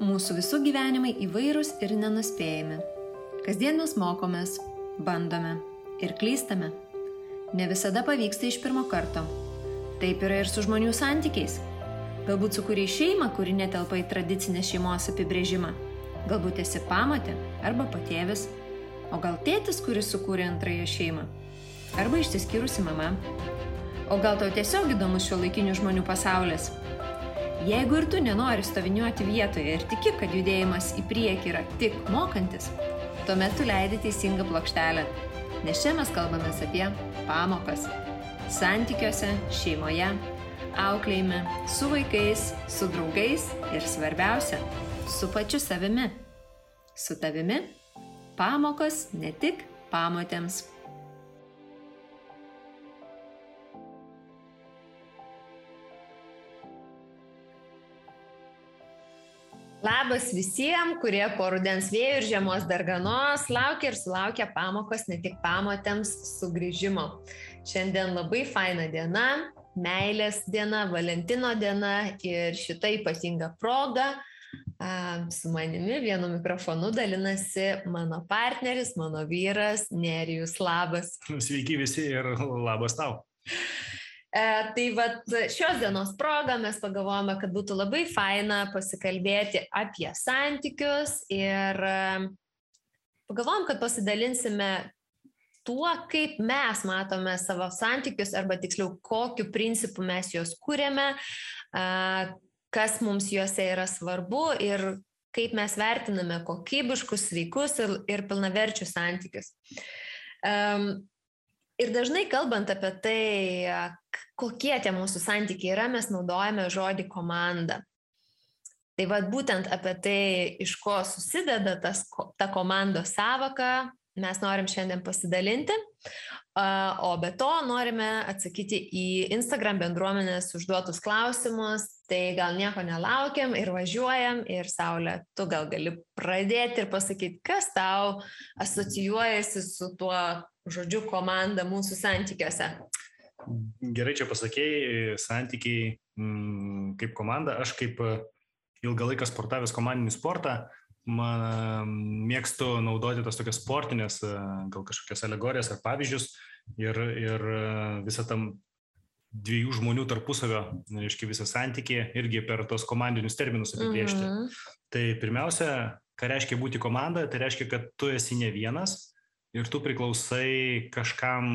Mūsų visų gyvenimai įvairūs ir nenuspėjami. Kasdien mes mokomės, bandome ir klystame. Ne visada pavyksta iš pirmo karto. Taip yra ir su žmonių santykiais. Galbūt sukūrei šeimą, kuri netelpa į tradicinę šeimos apibrėžimą. Galbūt esi pamotė arba patėvis. O gal tėtis, kuris sukūrė antrąją šeimą. Arba išsiskyrusi mama. O gal tau tiesiog įdomus šiuolaikinių žmonių pasaulis. Jeigu ir tu nenori stoviniuoti vietoje ir tiki, kad judėjimas į priekį yra tik mokantis, tuomet tu leidi teisingą plokštelę, nes čia mes kalbamės apie pamokas. Santykiuose, šeimoje, auklėjime, su vaikais, su draugais ir svarbiausia, su pačiu savimi. Su tavimi pamokos ne tik pamotėms. Labas visiems, kurie po rudens vėjų ir žiemos darganos laukia ir sulaukia pamokos ne tik pamotėms sugrįžimo. Šiandien labai faina diena, meilės diena, Valentino diena ir šita ypatinga proga su manimi vienu mikrofonu dalinasi mano partneris, mano vyras Nerijus. Labas. Sveiki visi ir labas tau. Tai vat šios dienos progą mes pagalvojame, kad būtų labai faina pasikalbėti apie santykius ir pagalvojom, kad pasidalinsime tuo, kaip mes matome savo santykius arba tiksliau, kokiu principu mes juos kūrėme, kas mums juose yra svarbu ir kaip mes vertiname kokybiškus, sveikus ir pilnaverčius santykius. Ir dažnai kalbant apie tai, kokie tie mūsų santykiai yra, mes naudojame žodį komanda. Tai vat būtent apie tai, iš ko susideda ta komandos sąvoka, mes norim šiandien pasidalinti, o be to norime atsakyti į Instagram bendruomenės užduotus klausimus, tai gal nieko nelaukiam ir važiuojam ir Saulė, tu gal gali pradėti ir pasakyti, kas tau asocijuojasi su tuo žodžiu komanda mūsų santykiuose. Gerai čia pasakėjai, santykiai kaip komanda, aš kaip ilgą laiką sportavęs komandinį sportą, mėgstu naudoti tas tokias sportinės, gal kažkokias alegorijas ar pavyzdžius ir visą tam dviejų žmonių tarpusavio, reiškia visą santykį irgi per tos komandinius terminus apibrėžti. Tai pirmiausia, ką reiškia būti komanda, tai reiškia, kad tu esi ne vienas ir tu priklausai kažkam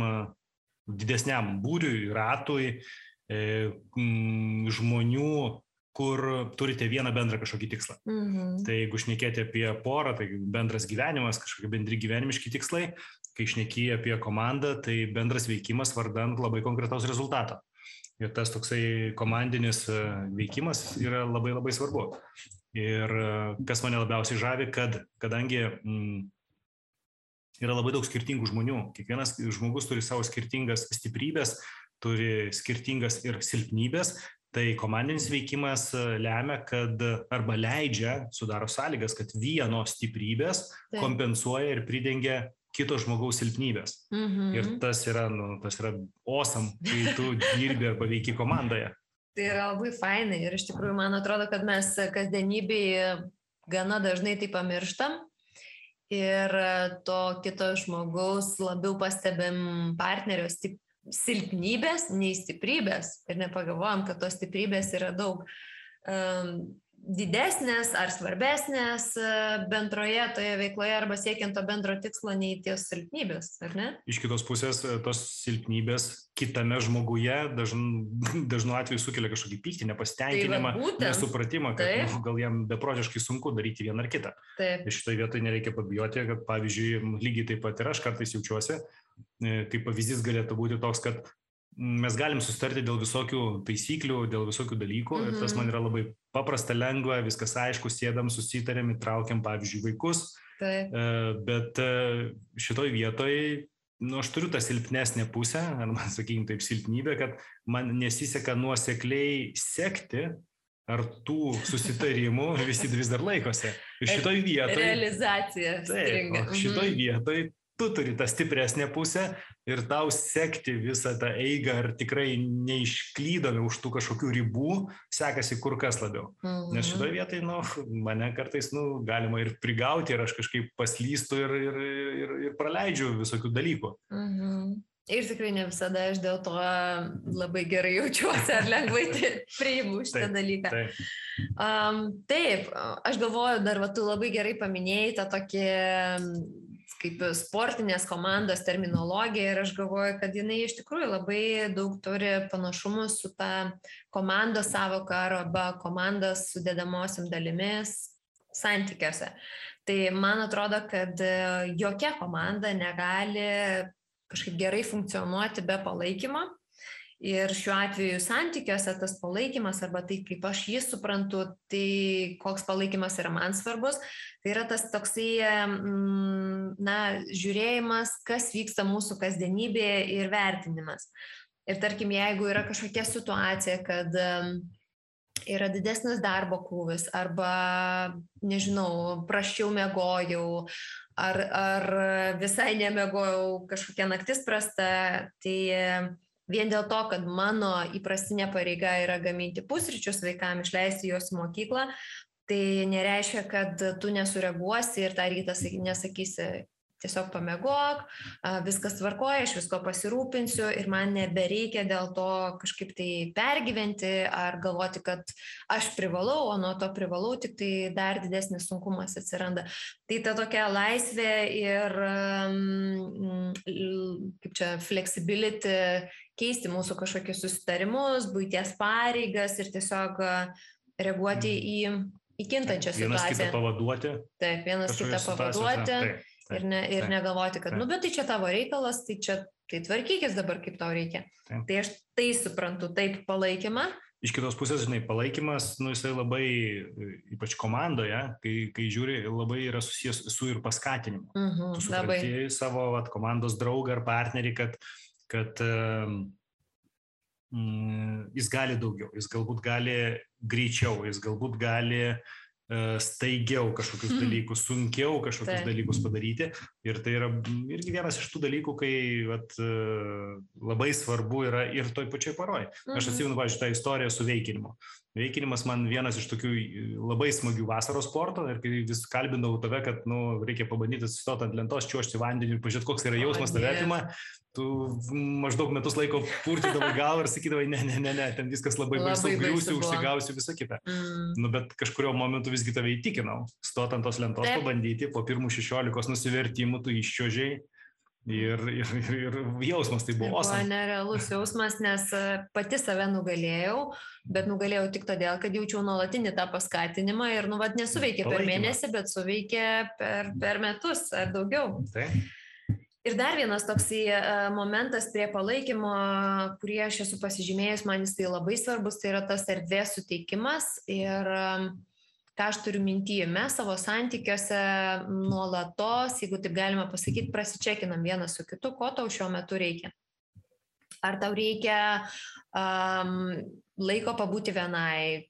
didesniam būriui, ratui, žmonių, kur turite vieną bendrą kažkokį tikslą. Tai jeigu šnekėti apie porą, tai bendras gyvenimas, kažkokie bendri gyvenimiški tikslai, kai šneki apie komandą, tai bendras veikimas vardan labai konkretaus rezultato. Ir tas toksai komandinis veikimas yra labai labai svarbu. Ir kas mane labiausiai žavi, kadangi yra labai daug skirtingų žmonių, kiekvienas žmogus turi savo skirtingas stiprybės, turi skirtingas ir silpnybės, tai komandinis veikimas lemia, kad arba leidžia, sudaro sąlygas, kad vieno stiprybės kompensuoja ir pridengia kito žmogaus silpnybės. Ir tas yra awesome, kai tu dirbi arba veiki komandoje. Tai yra labai fainai ir iš tikrųjų man atrodo, kad mes kasdienybėje gana dažnai tai pamirštam ir to kito žmogaus labiau pastebim partnerio silpnybės, nei stiprybės ir nepagalvojam, kad tos stiprybės yra daug didesnės ar svarbesnės bendroje toje veikloje arba siekiant to bendro tikslo nei ties silpnybės, ar ne? Iš kitos pusės, tos silpnybės kitame žmoguje dažnu atveju sukelia kažkokį pyktį, nepasitenkinimą, nesupratimą, kad gal jam beprotiškai sunku daryti vieną ar kitą. Ir šitoje vietoje nereikia pabijoti, kad pavyzdžiui, lygiai taip pat ir aš kartais jaučiuosi, kaip pavyzdys galėtų būti toks, kad mes galim susitarti dėl visokių taisyklių, dėl visokių dalykų ir tas man yra labai paprasta, lengva, viskas aišku, sėdam, susitarėm, įtraukiam, pavyzdžiui, vaikus, bet šitoj vietoj, aš turiu tą silpnesnę pusę, arba, sakykime taip, silpnybę, kad man nesiseka nuosekliai sekti, ar tų susitarimų visi vis dar laikosi. Ir šitoj vietoj... Realizacija stringa. Šitoj vietoj tu turi tą stipresnę pusę ir tau sekti visą tą eigą, ar tikrai neišklydome už tų kažkokių ribų, sekasi kur kas labiau. Nes šitoje vietoje, mane kartais, galima ir prigauti, ir aš kažkaip paslystu ir praleidžiu visokių dalykų. Ir tikrai ne visada aš dėl to labai gerai jaučiuosi ar lengvai priimu šitą dalyką. Taip, aš galvoju, dar tu labai gerai paminėjai tą tokį kaip sportinės komandos terminologiją ir aš galvoju, kad jinai iš tikrųjų labai daug turi panašumų su ta komandos sąvoka arba komandos sudedamosiam dalimis santykiuose. Tai man atrodo, kad jokia komanda negali kažkaip gerai funkcionuoti be palaikymo. Ir šiuo atveju santykiuose tas palaikymas arba tai, kaip aš jį suprantu, tai koks palaikymas yra man svarbus, tai yra tas toksai, žiūrėjimas, kas vyksta mūsų kasdienybėje ir vertinimas. Ir tarkim, jeigu yra kažkokia situacija, kad yra didesnis darbo krūvis arba, nežinau, prasčiau miegojau, ar visai nemiegojau, kažkokia naktis prasta, tai vien dėl to, kad mano įprastinė pareiga yra gaminti pusryčius vaikam, išleisti juos į mokyklą, tai nereiškia, kad tu nesureaguosi ir tą rytą nesakysi, tiesiog pamiegok, viskas tvarkoja, aš visko pasirūpinsiu ir man nebereikia dėl to kažkaip tai pergyventi ar galvoti, kad aš privalau, o nuo to privalau, tik tai dar didesnis sunkumas atsiranda. Tai ta tokia laisvė ir kaip čia flexibility, keisti mūsų kažkokius susitarimus, buities pareigas ir tiesiog reaguoti į kintančią situaciją. Vienas kitą pavaduoti. Taip, vienas kitą pavaduoti. Ir negalvoti, kad, bet tai čia tavo reikalas, tai tvarkykis dabar, kaip tau reikia. Taip. Tai aš tai suprantu, taip palaikymą. Iš kitos pusės, palaikymas, jisai labai, ypač komandoje, kai žiūri, labai yra susijęs su ir paskatinimu. Tu supranti savo komandos draugą ar partnerį, kad jis gali daugiau, jis galbūt gali greičiau, jis galbūt gali staigiau kažkokius dalykus, sunkiau kažkokius dalykus padaryti. Ir tai yra irgi vienas iš tų dalykų, kai labai svarbu yra ir toj pačioj poroj. Aš atsimenu, pavyzdžiui, tą istoriją su veikinimu. Veikinimas man vienas iš tokių labai smagių vasaros sporto ir kai vis kalbindavau tave, kad reikia pabandyti atsistoti ant lentos, čiuožti vandenį ir pažiūrėti, koks yra jausmas tave apima, tu maždaug metus laiko purtydavai galvą ir sakydavai, ne, ten viskas labai baisu, griūsiu, užsigausiu, visą kitą. Bet kažkurio momentu visgi tave įtikinau, stot ant tos lentos, pabandyti, po pirmų 16 nusivertimų tu iščiuožei. Ir jausmas tai buvo awesome. Buvo nerealus jausmas, nes pati save nugalėjau, bet nugalėjau tik todėl, kad jaučiau nuolatinį tą paskatinimą ir nesuveikė per mėnesį, bet suveikė per metus ar daugiau. Tai. Ir dar vienas toksai momentas prie palaikymo, kurį aš esu pasižymėjus, man jis tai labai svarbus, tai yra tas erdvės suteikimas ir ką aš turiu minty, mes savo santykiuose nuolatos, jeigu taip galima pasakyti, prasičekinam vienas su kitu, ko tau šiuo metu reikia. Ar tau reikia laiko pabūti vienai,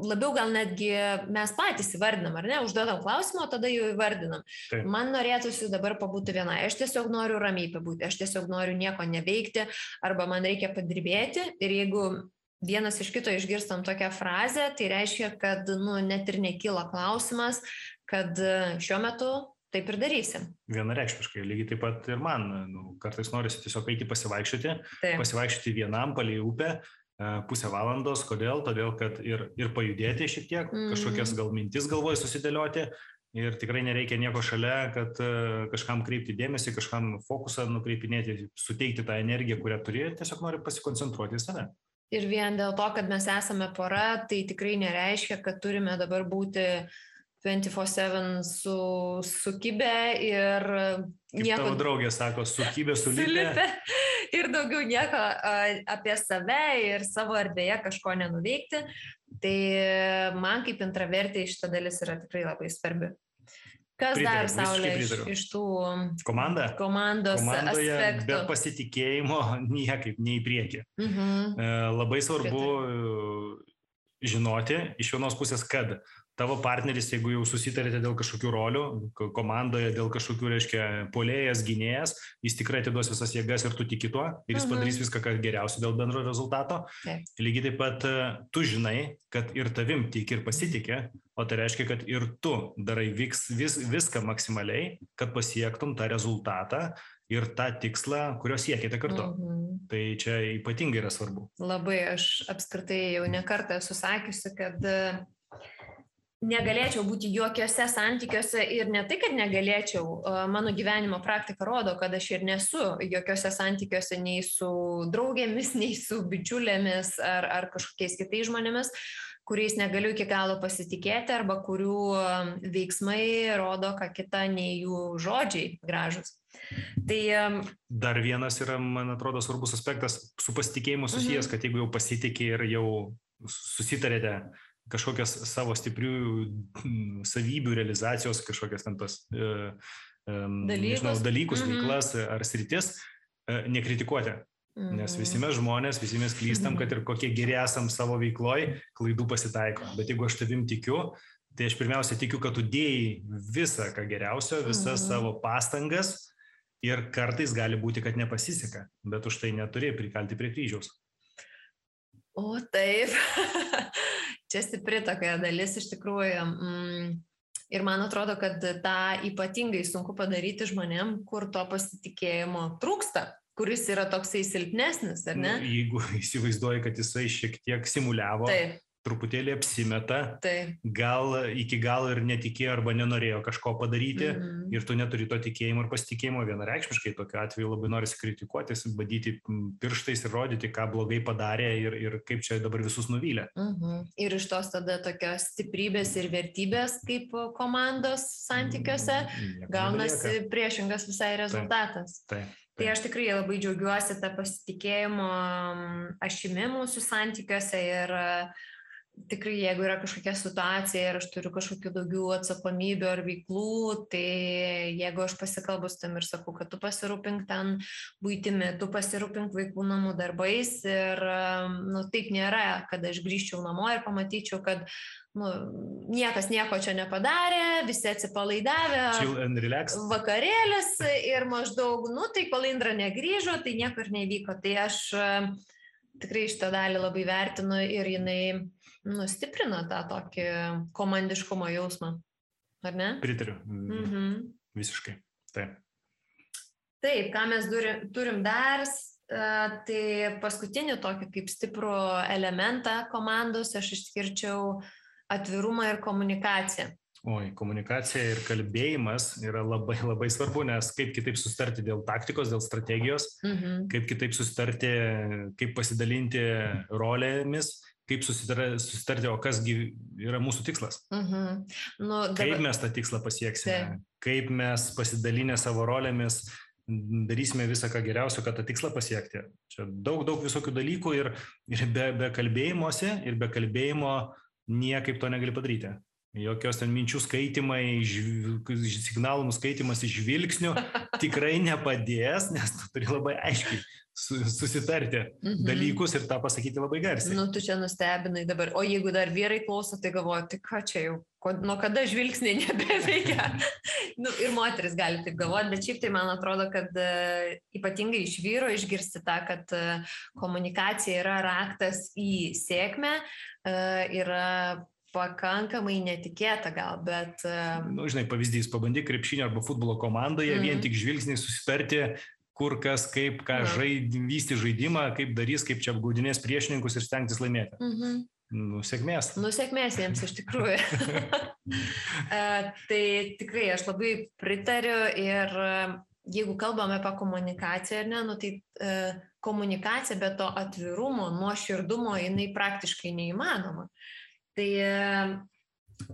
labiau gal netgi mes patys įvardinam, ar ne, užduodam klausimą, o tada jau įvardinam. Taip. Man norėtųsi dabar pabūti vienai, aš tiesiog noriu ramiai pabūti, aš tiesiog noriu nieko neveikti, arba man reikia padirbėti ir jeigu vienas iš kito išgirstam tokią frazę, tai reiškia, kad net ir nekyla klausimas, kad šiuo metu taip ir darysim. Vienareikšmiškai, lygiai taip pat ir man. Kartais norisi tiesiog eiti pasivaikščioti vienam palei upę, pusę valandos. Kodėl? Todėl, kad ir pajudėti šiek tiek, kažkokias gal mintis galvoje susidėlioti. Ir tikrai nereikia nieko šalia, kad kažkam kreipti dėmesį, kažkam fokusą nukreipinėti, suteikti tą energiją, kurią turi, tiesiog nori pasikoncentruoti į save. Ir vien dėl to, kad mes esame pora, tai tikrai nereiškia, kad turime dabar būti 24/7 sukibę ir nieko... Kaip tavo draugė sako, sukibę, sulipę. Ir daugiau nieko apie save ir savo erdvėje kažko nenuveikti. Tai man kaip intravertė šita dalis yra tikrai labai svarbi. Kas dar, Saulė, iš tų komandos aspektų? Be pasitikėjimo niekaip nei į priekį. Labai svarbu žinoti iš vienos pusės, kad tavo partneris, jeigu jau susitarėte dėl kažkokių rolių, komandoje dėl kažkokių, reiškia, puolėjas, gynėjas, jis tikrai atiduos visas jėgas ir tu tiki tuo, ir jis padarys viską, kas geriausia dėl bendro rezultato. Lygiai taip pat tu žinai, kad ir tavim tiki ir pasitikė, o tai reiškia, kad ir tu darai viską maksimaliai, kad pasiektum tą rezultatą ir tą tikslą, kurio siekite kartu. Tai čia ypatingai yra svarbu. Labai, aš apskritai jau ne kartą esu sakiusi, kad negalėčiau būti jokiuose santykiuose ir ne tai, kad negalėčiau, mano gyvenimo praktika rodo, kad aš ir nesu jokiuose santykiuose nei su draugėmis, nei su bičiulėmis ar kažkokiais kitais žmonėmis, kuriais negaliu iki galo pasitikėti arba kurių veiksmai rodo, ką kita, nei jų žodžiai gražus. Tai dar vienas yra, man atrodo, svarbus aspektas su pasitikėjimu susijęs, kad jeigu jau pasitikė ir jau susitarėte kažkokias savo stiprių savybių realizacijos, kažkokias ten tos dalykus, veiklas ar sritis, nekritikuoti. Nes visi mes žmonės, visi mes klystam, kad ir kokie geri esam savo veikloj, klaidų pasitaiko. Bet jeigu aš tavim tikiu, tai aš pirmiausia tikiu, kad tu dėjai visą, ką geriausio, visas savo pastangas ir kartais gali būti, kad nepasiseka, bet už tai neturi prikalti prie kryžiaus. O taip. Čia stipri tokia dalis iš tikrųjų ir man atrodo, kad tą ypatingai sunku padaryti žmonėm, kur to pasitikėjimo trūksta, kuris yra toksai silpnesnis, ar ne? Jeigu įsivaizduoji, kad jisai šiek tiek simuliavo, truputėlį apsimeta, gal iki galo ir netikėjo arba nenorėjo kažko padaryti ir tu neturi to tikėjimo ir pasitikėjimo vienareikšmiškai, tokiu atveju labai norisi kritikuotis, badyti pirštais ir rodyti, ką blogai padarė ir kaip čia dabar visus nuvylė. Ir iš tos tada tokios stiprybės ir vertybės kaip komandos santykiuose gaunasi priešingas visai rezultatas. Tai aš tikrai labai džiaugiuosi tą pasitikėjimo ašimi mūsų santykiuose ir tikrai, jeigu yra kažkokia situacija ir aš turiu kažkokių daugiau atsakomybių ar veiklų, tai jeigu aš pasikalbu su tam ir sakau, kad tu pasirūpink ten buitimi, tu pasirūpink vaikų namų darbais ir taip nėra, kad aš grįžčiau namo ir pamatyčiau, kad niekas nieko čia nepadarė, visi atsipalaidavę, vakarėlis ir maždaug, tai kol Indra negrįžo, tai nieko ir nevyko. Tai aš tikrai šitą dalį labai vertinu ir jinai stiprina tą tokį komandiškumo jausmą, ar ne? Pritariu, visiškai, taip. Taip, ką mes turim dar, tai paskutinį tokį kaip stiprų elementą komandos aš išskirčiau atvirumą ir komunikaciją. Komunikacija ir kalbėjimas yra labai, labai svarbu, nes kaip kitaip susitarti dėl taktikos, dėl strategijos, kaip kitaip susitarti, kaip pasidalinti rolėmis, kaip susitarti, o kasgi yra mūsų tikslas. Kaip mes tą tikslą pasieksime, kaip mes pasidalinę savo rolėmis darysime visą, ką geriausio, kad tą tikslą pasiekti. Čia daug visokių dalykų ir be kalbėjimuose ir be kalbėjimo niekaip to negali padaryti. Jokios ten minčių skaitimai, signalų nuskaitimas iš žvilgsnių tikrai nepadės, nes tu turi labai aiškiai susitarti dalykus ir tą pasakyti labai garsiai. Tu čia nustebinai dabar, o jeigu dar vyrai klauso, tai galvoju, tai ką čia jau, nuo kada žvilgsniai nebeveikia? Ir moteris gali taip galvoti, bet šiaip tai man atrodo, kad ypatingai iš vyro išgirsti tą, kad komunikacija yra raktas į sėkmę, yra pakankamai netikėta gal, bet... Žinai, pavyzdys, pabandyk krepšinio arba futbolo komandoje, vien tik žvilgsniai susitarti, kur kas, kaip, ką vysti žaidimą, kaip darys, kaip čia apgaudinės priešininkus ir stengtis laimėti. Sėkmės. Sėkmės jiems iš tikrųjų. Tai tikrai aš labai pritariu ir jeigu kalbame apie komunikaciją, tai komunikacija be to atvirumo, nuoširdumo, jinai praktiškai neįmanoma. Tai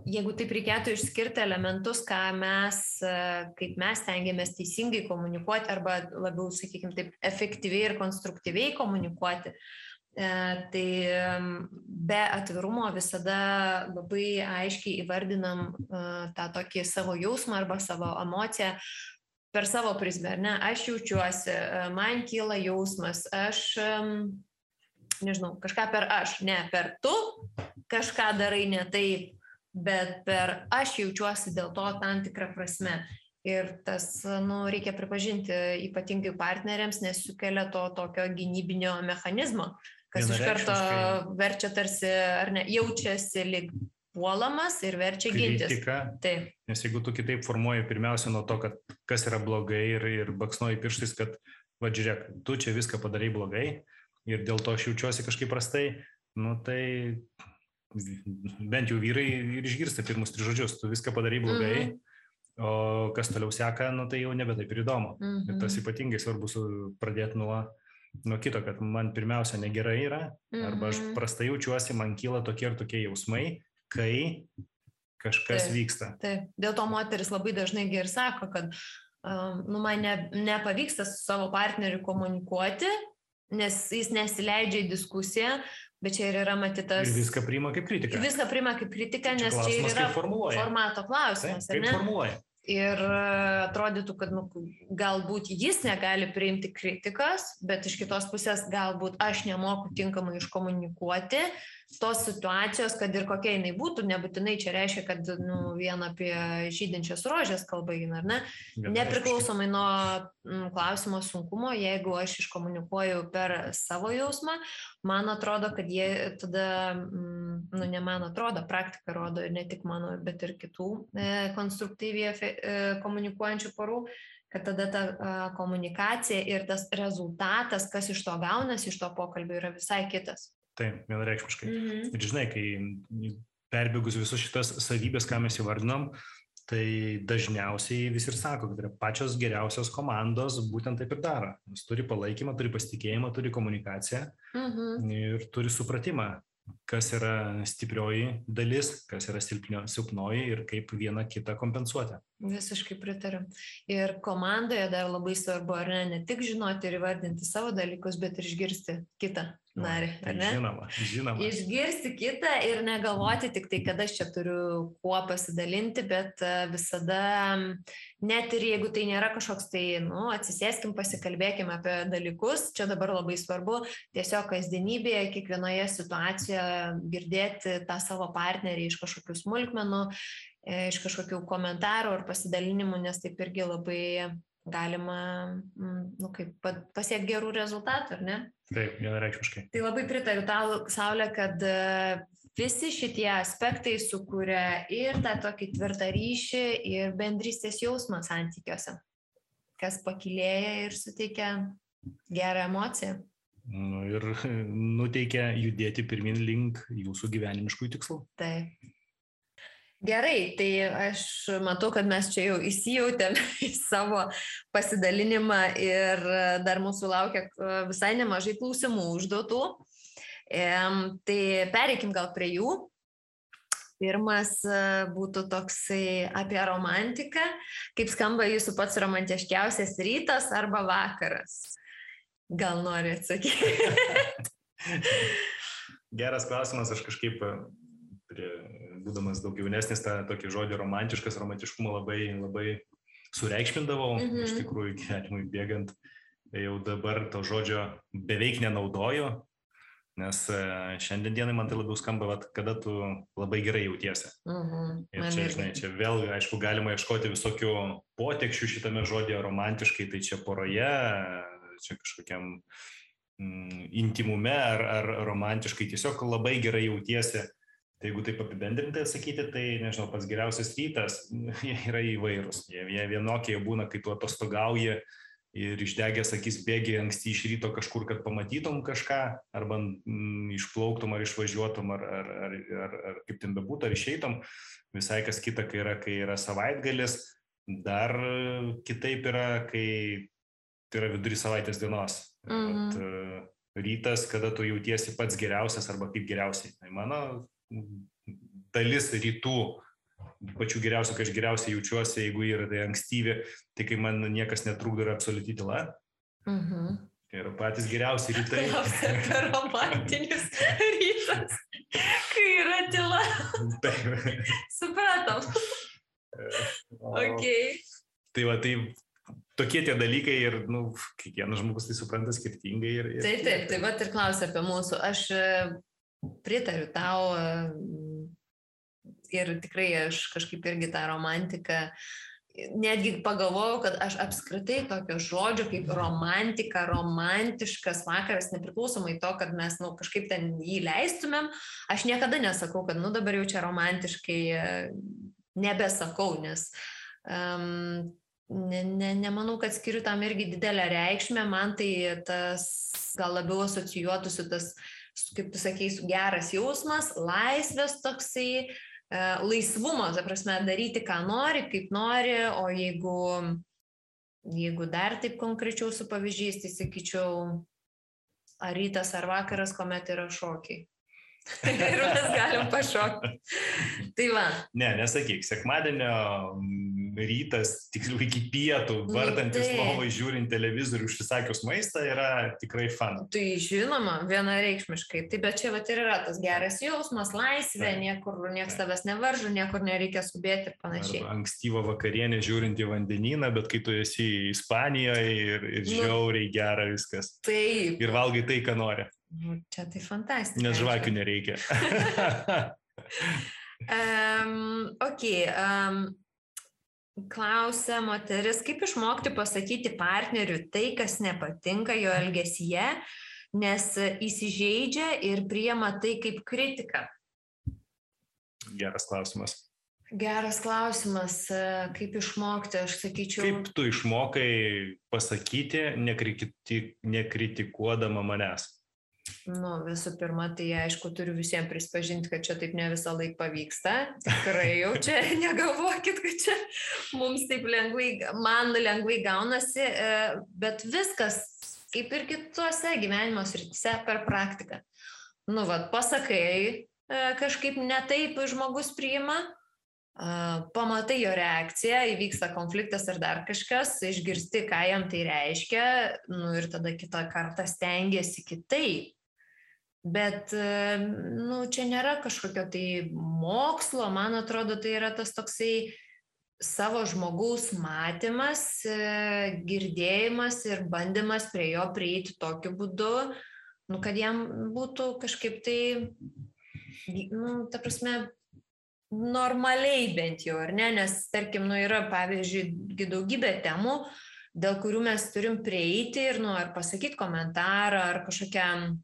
jeigu taip reikėtų išskirti elementus, kaip mes stengiamės teisingai komunikuoti arba labiau, sakykime, taip efektyviai ir konstruktyviai komunikuoti, tai be atvirumo visada labai aiškiai įvardinam tą tokį savo jausmą arba savo emociją per savo prizmę, ar ne? Aš jaučiuosi, man kyla jausmas, aš... nežinau, kažką per aš, ne per tu, kažką darai ne taip, bet per aš jaučiuosi dėl to tam tikrą prasme. Ir tas, reikia pripažinti ypatingai partneriams, nes sukelia to tokio gynybinio mechanizmo, kas iš karto verčia tarsi, ar ne, jaučiasi lyg puolamas ir verčia gintis. Taip. Nes jeigu tu kitaip formuoji pirmiausia nuo to, kad kas yra blogai ir baksnuoji pirštais, kad, va žiūrėk, tu čia viską padarai blogai ir dėl to aš jaučiuosi kažkaip prastai, tai bent jau vyrai ir išgirsta pirmus 3 žodžius, tu viską padarai blogai, o kas toliau seka, tai jau nebe taip ir įdomu. Ir tas ypatingai svarbu pradėti nuo kito, kad man pirmiausia negerai yra, arba aš prastai jaučiuosi, man kyla tokie ir tokie jausmai, kai kažkas vyksta. Taip. Dėl to moteris labai dažnai ir sako, kad man nepavyksta su savo partneriu komunikuoti, nes jis nesileidžia į diskusiją, bet čia ir yra matytas... Ir viską priima kaip kritiką. Viską priima kaip kritiką, nes čia ir yra formato klausimas. Kaip formuluoja. Ir atrodytų, kad galbūt jis negali priimti kritikos, bet iš kitos pusės galbūt aš nemoku tinkamai iškomunikuoti tos situacijos, kad ir kokia jinai būtų, nebūtinai čia reiškia, kad vien apie žydinčias rožės kalba eina, ar ne? Nepriklausomai nuo klausimo sunkumo, jeigu aš iškomunikuoju per savo jausmą, man atrodo, kad jie tada, ne man atrodo, praktika rodo, ne tik mano, bet ir kitų konstruktyviai komunikuojančių porų, kad tada ta komunikacija ir tas rezultatas, kas iš to gaunasi, iš to pokalbio, yra visai kitas. Taip, vienareikšmiškai. Ir žinai, kai perbėgus visus šitas savybės, ką mes įvardinom, tai dažniausiai visi ir sako, kad yra pačios geriausios komandos būtent taip ir daro. Jis turi palaikymą, turi pasitikėjimą, turi komunikaciją ir turi supratimą, kas yra stiprioji dalis, kas yra silpnoji ir kaip vieną kitą kompensuoti. Visiškai pritariu. Ir komandoje dar labai svarbu, ar ne tik žinoti ir įvardinti savo dalykus, bet ir išgirsti kitą narį, ar ne? Žinoma. Išgirsti kitą ir negalvoti tik tai, kad aš čia turiu kuo pasidalinti, bet visada, net ir jeigu tai nėra kažkoks tai, atsisėskim, pasikalbėkim apie dalykus, čia dabar labai svarbu, tiesiog kasdienybėje, kiekvienoje situacijoje girdėti tą savo partnerį iš kažkokių smulkmenų, iš kažkokių komentarų ar pasidalinimų, nes taip irgi labai galima pasiekti gerų rezultatų, ar ne? Taip, vienareikšmiškai. Tai labai pritariu tau, Saulė, kad visi šitie aspektai sukuria ir tą tokį tvirtą ryšį ir bendrystės jausmą santykiuose, kas pakilėja ir suteikia gerą emociją. Ir nuteikia judėti pirmin link jūsų gyvenimiškų tikslų. Taip. Gerai, tai aš matau, kad mes čia jau įsijautėme į savo pasidalinimą ir dar mūsų laukia visai nemažai klausimų užduotų. Tai pereikim gal prie jų. Pirmas būtų toksai apie romantiką. Kaip skamba jūsų pats romantiškiausias rytas arba vakaras? Gal nori atsakyti? Geras klausimas, aš kažkaip... būdamas daug jaunesnis, tą tokį žodį romantiškumą labai sureikšmindavau, iš tikrųjų gyvenimui bėgant, jau dabar to žodžio beveik nenaudoju, nes šiandien dienai man tai labiau skamba, kada tu labai gerai jautiesi. Ir čia, žinai, čia vėl, aišku, galima ieškoti visokių potekščių šitame žodėje romantiškai, tai čia poroje, čia kažkokiam intimume ar romantiškai, tiesiog labai gerai jautiesi. Tai jeigu taip apibendrintai atsakyti, tai, nežinau, pats geriausias rytas, jie yra įvairūs. Jie vienokie būna, kai tu atostogauji ir išdegęs akis bėgi anksti iš ryto kažkur, kad pamatytum kažką, arba išplauktum ar išvažiuotum, ar kaip ten bebūtų, ar išeitum. Visai kas kita, kai yra savaitgalis, dar kitaip yra, kai tai yra vidury savaitės dienos. Rytas, kada tu jautiesi pats geriausias arba kaip geriausiai. Tai mano dalis rytų pačių geriausių, kai aš geriausiai jaučiuosi, jeigu yra tai ankstyvi, tai kai man niekas netrukdo ir absoliuti tyla. Tai yra patys geriausi rytai. Apie romantinis rytas, kai yra tyla. Supratom. Okay. Tai va, tai tokie tie dalykai ir, kiekvienas žmogus tai supranta skirtingai. Taip, tai va ir klausia apie mūsų. Aš pritariu tau, ir tikrai aš kažkaip irgi tą romantiką, netgi pagalvojau, kad aš apskritai tokio žodžio kaip romantika, romantiškas vakaras, nepriklausomai to, kad mes kažkaip ten jį leistumėm, aš niekada nesakau, kad dabar jau čia romantiškai nebesakau, nes nemanau, kad skiriu tam irgi didelę reikšmę, man tai tas gal labiau asocijuotųsi tas, kaip tu sakei, geras jausmas, laisvės toksai, laisvumo, ta prasme, daryti, ką nori, kaip nori, o jeigu dar taip konkrečiau su pavyzdžiais, tai sakyčiau, ar rytas, ar vakaras, kuomet yra šokiai. Ir mes galim pašokti. Tai va. Ne, nesakyk, sekmadienio rytas, tiksliau iki pietų, vardantis lovai, žiūrint televizorių, užsisakius maistą, yra tikrai fun. Tai žinoma, vienareikšmiškai. Tai bet čia vat ir yra tas geras jausmas, laisvė, niekur niekas tavęs nevaržo, niekur nereikia skubėti ir panašiai. Arba ankstyvą vakarienę žiūrint į vandenyną, bet kai tu esi Ispanijoje ir žiauriai gera viskas. Taip. Ir valgai tai, ką nori. Čia tai fantastika. Nes žvakių nereikia. Klausia moteris, kaip išmokti pasakyti partneriui tai, kas nepatinka jo elgesyje, nes įsižeidžia ir priima tai kaip kritiką. Geras klausimas. Geras klausimas, kaip išmokti, aš sakyčiau. Kaip tu išmokai pasakyti, nekritikuodama manęs? Visų pirma, tai aišku, turiu visiems prispažinti, kad čia taip ne visą laiką pavyksta. Tikrai jau čia negalvokit, kad čia mums taip man lengvai gaunasi, bet viskas, kaip ir kitose gyvenimo srityse, per praktiką. Pasakai, kažkaip ne taip žmogus priima, pamatai jo reakciją, įvyksta konfliktas ar dar kažkas, išgirsti, ką jam tai reiškia, ir tada kitą kartą stengiasi kitaip. Bet, čia nėra kažkokio tai mokslo, man atrodo, tai yra tas toksai savo žmogaus matymas, girdėjimas ir bandymas prie jo prieiti tokiu būdu, kad jam būtų kažkaip tai, ta prasme, normaliai bent jau, ar ne, nes, tarkim, yra, pavyzdžiui, daugybė temų, dėl kurių mes turim prieiti ir, ar pasakyti komentarą, ar kažkokią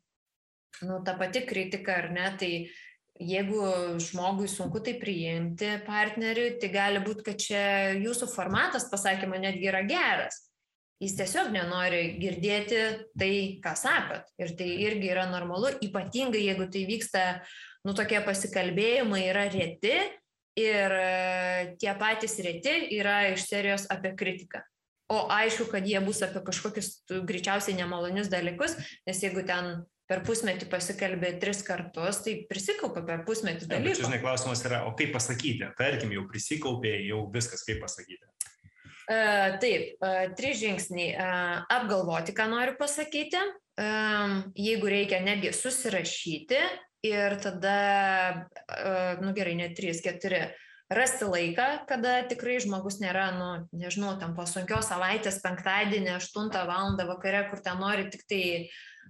ta pati kritika, ar ne, tai jeigu žmogui sunku tai priimti partneriui, tai gali būti, kad čia jūsų formatas pasakymo netgi yra geras. Jis tiesiog nenori girdėti tai, ką sakot. Ir tai irgi yra normalu, ypatingai jeigu tai vyksta, tokie pasikalbėjimai yra reti ir tie patys reti yra iš serijos apie kritiką. O aišku, kad jie bus apie kažkokius greičiausiai nemalonius dalykus, nes jeigu ten per pusmetį pasikalbė 3 kartus, tai prisikaupė per pusmetį dalykų. Bet čia, žinai, klausimas yra, o kaip pasakyti? Tarkim, jau prisikaupė, jau viskas, kaip pasakyti? Taip, 3 žingsniai. Apgalvoti, ką noriu pasakyti. Jeigu reikia, netgi susirašyti ir tada, gerai, ne 3, 4, rasti laiką, kada tikrai žmogus nėra, nežinau, tam po sunkios savaitės, penktadienį, 8 valandą vakare, kur ten nori tik tai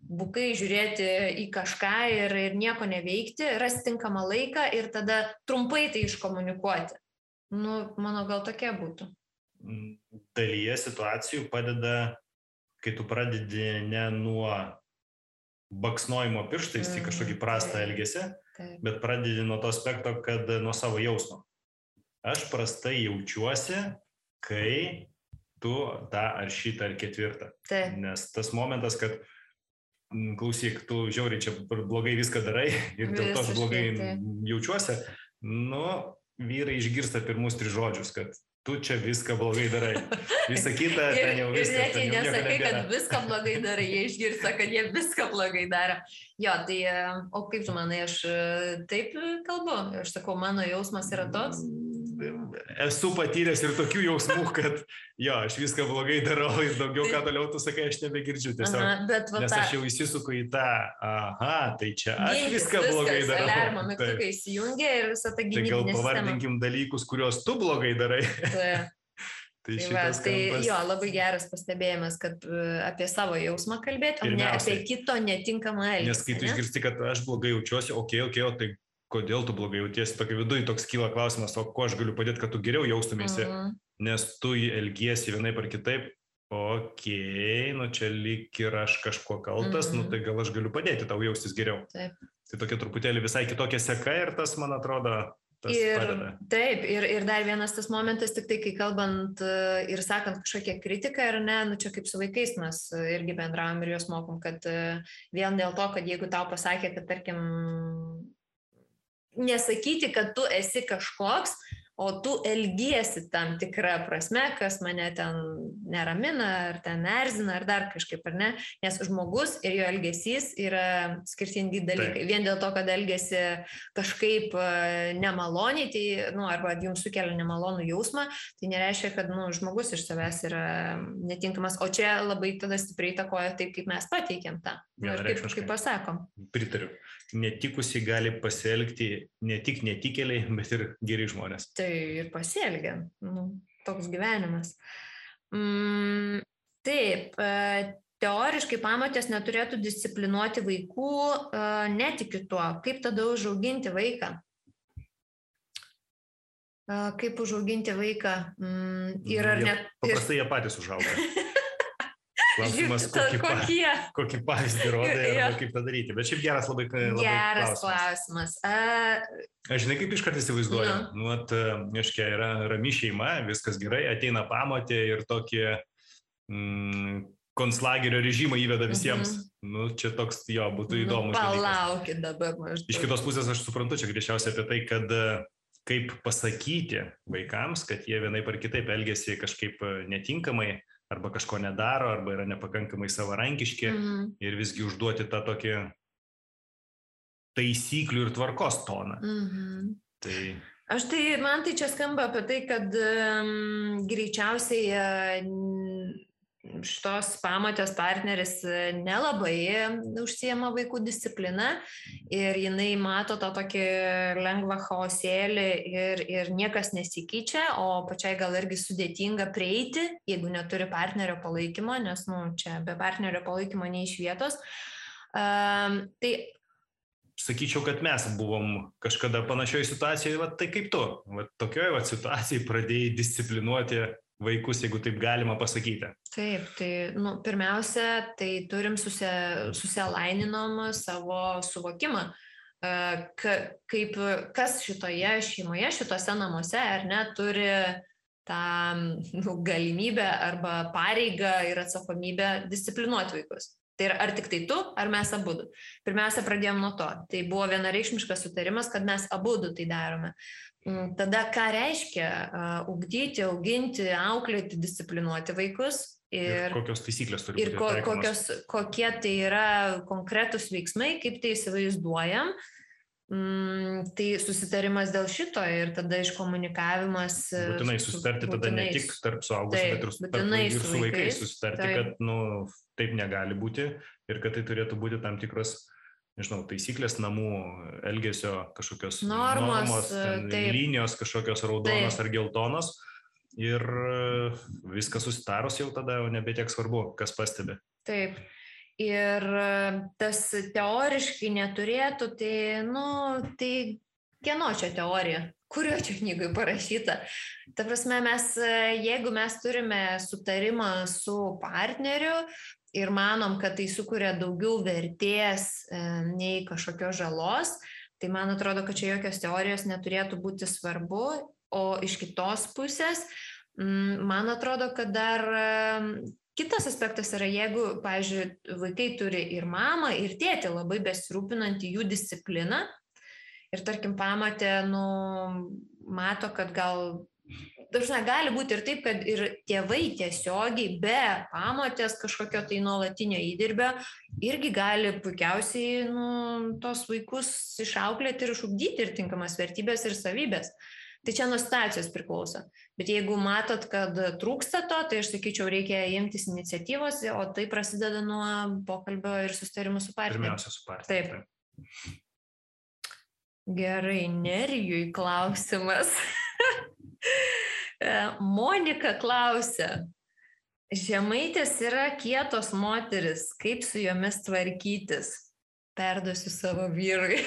bukai žiūrėti į kažką ir nieko neveikti, rasti tinkamą laiką ir tada trumpai tai iškomunikuoti. Mano gal tokia būtų. Dalyje situacijų padeda, kai tu pradedi ne nuo baksnojimo pirštais į kažkokį prastą elgesį, bet pradedi nuo to aspekto, kad nuo savo jausmo. Aš prastai jaučiuosi, kai tu tą ar šitą ar ketvirtą. Nes tas momentas, kad klausyk, tu žiauriai čia blogai viską darai ir dėl to aš blogai jaučiuosi, vyrai išgirsta pirmus 3 žodžius, kad tu čia viską blogai darai. Visa kita, ten jau viskas. Ir net jie nesakai, kad viską blogai darai, jie išgirsta, kad jie viską blogai daro. Jo, tai, o kaip tu manai, aš taip kalbu? Aš sakau, mano jausmas yra toks. Esu patyręs ir tokių jausmų, kad aš viską blogai darau ir daugiau ką toliau tu sakai, aš nebegirdžiu tiesiog. Nes aš jau įsisuku į tą, tai čia aš viską blogai darau. Alarmo mygtukai įsijungia ir visą tą gynybinę sistemą. Tai gal pavardinkim dalykus, kuriuos tu blogai darai. Tai labai geras pastebėjimas, kad apie savo jausmą kalbėti, o ne apie kito netinkamą elgesį. Nes kai tu išgirsti, kad aš blogai jaučiuosi, tai kodėl tu blogai jautiesi, tokio viduje toks kyla klausimas, o ko aš galiu padėti, kad tu geriau jaustumėsi, nes tu elgiesi vienaip ar kitaip, nu čia lyg ir aš kažkuo kaltas, nu tai gal aš galiu padėti tau jaustis geriau. Taip. Tai tokia truputėlį visai kitokia seka ir tas, man atrodo, padeda. Taip, ir dar vienas tas momentas, tik tai, kai kalbant ir sakant kažkokią kritiką, ar ne, nu čia kaip su vaikais mes irgi bendravom ir juos mokom, kad vien dėl to, kad jeigu tau pasakė, kad tarkim, nesakyti, kad tu esi kažkoks, o tu elgiesi tam tikrą prasme, kas mane ten neramina, ar ten erzina, ar dar kažkaip, ar ne, nes žmogus ir jo elgesys yra skirtingi dalykai. Taip. Vien dėl to, kad elgesi kažkaip nemaloniai, tai, arba jums sukelia nemalonų jausmą, tai nereiškia, kad, žmogus iš savęs yra netinkamas, o čia labai tada stipriai įtakoja taip, kaip mes pateikiam tą. Ir kaip pasakom. Pritariu. Netikusiai gali pasielgti ne tik netikėliai, bet ir geri žmonės. Tai ir pasielgia. Toks gyvenimas. Taip, teoriškai pamotės neturėtų disciplinuoti vaikų, netikiu tuo. Kaip tada užauginti vaiką? Kaip užauginti vaiką? Paprastai jie patys užauga. Klausimas, kokį pavyzdį rodai arba kaip tą daryti. Bet šiaip geras labai klausimas. Aš žinai, kaip iškart įsivaizduoju. Aiškiai, yra rami šeima, viskas gerai, ateina pamotė ir tokį konclagerio režimą įveda visiems. Čia toks, būtų įdomus. Palaukit dabar maždaug. Iš kitos pusės aš suprantu, čia greičiausiai apie tai, kad kaip pasakyti vaikams, kad jie vienaip ar kitaip elgiasi kažkaip netinkamai, arba kažko nedaro, arba yra nepakankamai savarankiški ir visgi užduoti tą tokį taisyklių ir tvarkos toną. Man tai čia skamba apie tai, kad greičiausiai šitos pamotės partneris nelabai užsiema vaikų discipliną ir jinai mato tą tokį lengvą chaosėlį ir niekas nesikeičia, o pačiai gal irgi sudėtinga prieiti, jeigu neturi partnerio palaikymo, nes čia be partnerio palaikymo nei iš vietos. Tai sakyčiau, kad mes buvom kažkada panašioje situacijoje, tai kaip tu, tokioje situacijoje pradėjai disciplinuoti vaikus, jeigu taip galima pasakyti. Taip, tai pirmiausia, tai turim susialaininam savo suvokimą, kas šitoje šeimoje, šitose namuose, ar ne, turi tą galimybę arba pareigą ir atsakomybę disciplinuoti vaikus. Tai ar tik tai tu, ar mes abudu? Pirmiausia, pradėjom nuo to. Tai buvo vienareikšmiškas sutarimas, kad mes abudu tai darome. Tada ką reiškia ugdyti, auginti, auklėti, disciplinuoti vaikus ir kokios taisyklės turi būti taikomas. Kokie tai yra konkretūs veiksmai, kaip tai įsivaizduojam. Tai susitarimas dėl šito ir tada iškomunikavimas. Būtinai susitarti tada ne tik tarp suaugusių, bet ir su vaikais susitarti, kad taip negali būti ir kad tai turėtų būti tam tikros, taisyklės namų elgesio kažkokios normos linijos, kažkokios raudonos ar geltonos ir viskas susitarus jau tada jau nebe tiek svarbu, kas pastebi. Taip. Ir tas teoriškai neturėtų, tai kieno čia teorija? Kurio čia knygai parašyta? Ta prasme, jeigu mes turime sutarimą su partneriu ir manom, kad tai sukuria daugiau vertės nei kažkokios žalos, tai man atrodo, kad čia jokios teorijos neturėtų būti svarbu, o iš kitos pusės, man atrodo, kad dar kitas aspektas yra, jeigu, pavyzdžiui, vaikai turi ir mamą, ir tėtį labai besirūpinantį jų discipliną ir, tarkim, pamatė, mato, kad gali būti ir taip, kad ir tėvai tiesiogiai be pamotės kažkokio tai nuolatinio įdirbio irgi gali puikiausiai tos vaikus išauklėti ir išugdyti ir tinkamas vertybės ir savybės. Tai čia nuo situacijos priklauso. Bet jeigu matot, kad trūksta to, tai aš sakyčiau, reikia imtis iniciatyvos, o tai prasideda nuo pokalbio ir susitarimų su partneriu. Pirmiausia, su partneriu. Taip. Gerai, Nerijui klausimas. Monika klausia. Žemaitės yra kietos moteris, kaip su jomis tvarkytis? perduosiu savo vyrui.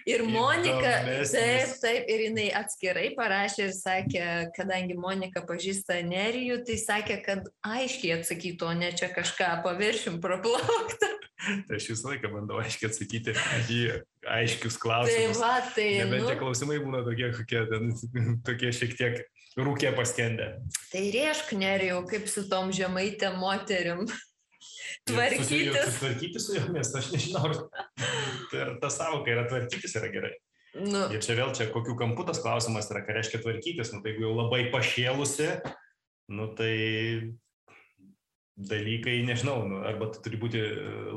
Ir Monika, taip, ir jinai atskirai parašė ir sakė, kadangi Monika pažįsta Nerijų, tai sakė, kad aiškiai atsakytų, o ne čia kažką paviršim praplaukta. Tai aš visą laiką bandau aiškiai atsakyti į aiškius klausimus. Tai nebent tie klausimai būna tokie šiek tiek rūkė paskendę. Tai rėžk, Nerijau, kaip su tom žemaitėm moterim. Tvarkytis su jomis, aš nežinau, ta savoka yra tvarkytis yra gerai. Ir čia vėl kokių kampų tas klausimas yra, ką reiškia tvarkytis, tai jeigu jau labai pašėlusi, tai dalykai, nežinau, arba tu turi būti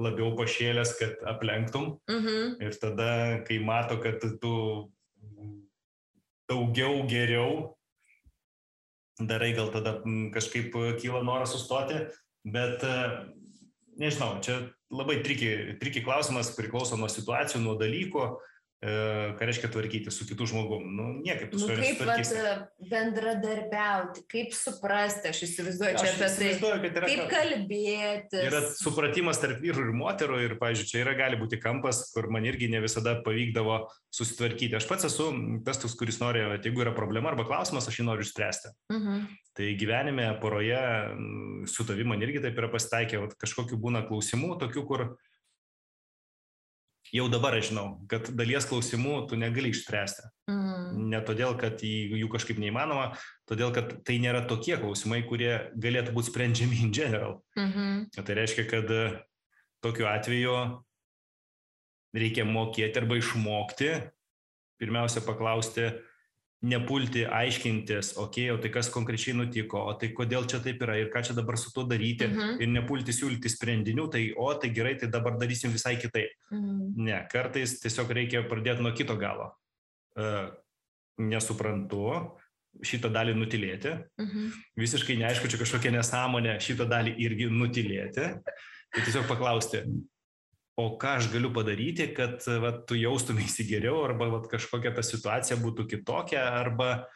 labiau pašėlęs, kad aplenktum, ir tada, kai mato, kad tu daugiau geriau darai, gal tada kažkaip kyla noras sustoti, bet nežinau, čia labai triki klausimas, priklauso nuo situacijų, nuo dalykų, ką reiškia tvarkyti su kitų žmogum. Niekaip tu su juo nesutvarkysi. Kaip bendradarbiauti, kaip suprasti, aš įsivaizduoju čia apie tai, kaip kalbėtis. Yra supratimas tarp vyrų ir moterų ir, pavyzdžiui, čia gali būti kampas, kur man irgi ne visada pavykdavo susitvarkyti. Aš pats esu tas, kuris nori, jeigu yra problema arba klausimas, aš jį noriu išspręsti. Tai gyvenime, poroje, su tavim man irgi taip yra pasitaikę, kažkokių būna klausimų, tokių, kur jau dabar aš žinau, kad dalies klausimų tu negali išspręsti. Ne todėl, kad jų kažkaip neįmanoma, todėl, kad tai nėra tokie klausimai, kurie galėtų būti sprendžiami in general. Tai reiškia, kad tokiu atveju reikia mokėti arba išmokti, pirmiausia paklausti, nepulti aiškintis, o tai kas konkrečiai nutiko, o tai kodėl čia taip yra ir ką čia dabar su tuo daryti, ir nepulti siūlyti sprendinių, tai gerai, tai dabar darysim visai kitaip. Ne, kartais tiesiog reikia pradėti nuo kito galo. Nesuprantu, šitą dalį nutilėti, visiškai neaišku, čia kažkokia nesąmonė, šitą dalį irgi nutilėti, tai tiesiog paklausti, o ką aš galiu padaryti, kad tu jaustumėsi geriau, arba kažkokia ta situacija būtų kitokia, arba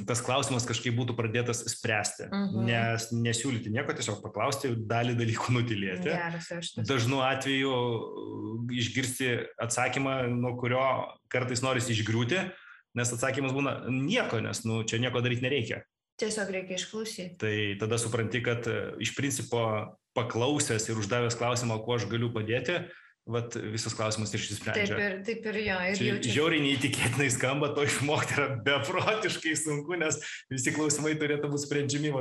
tas klausimas kažkaip būtų pradėtas spręsti. Nesiūlyti nieko, tiesiog paklausti, dalį dalykų nutilėti. Dažnu atveju išgirsti atsakymą, nuo kurio kartais norisi išgriūti, nes atsakymas būna nieko, nes čia nieko daryti nereikia. Tiesiog reikia išklausyti. Tai tada supranti, kad iš principo paklausęs ir uždavęs klausimą, kuo aš galiu padėti, visas klausimas išsisprendžia. Taip ir jo. Žiauriai neįtikėtinai skamba, to išmokti yra beprotiškai sunku, nes visi klausimai turėtų būti sprendžiami,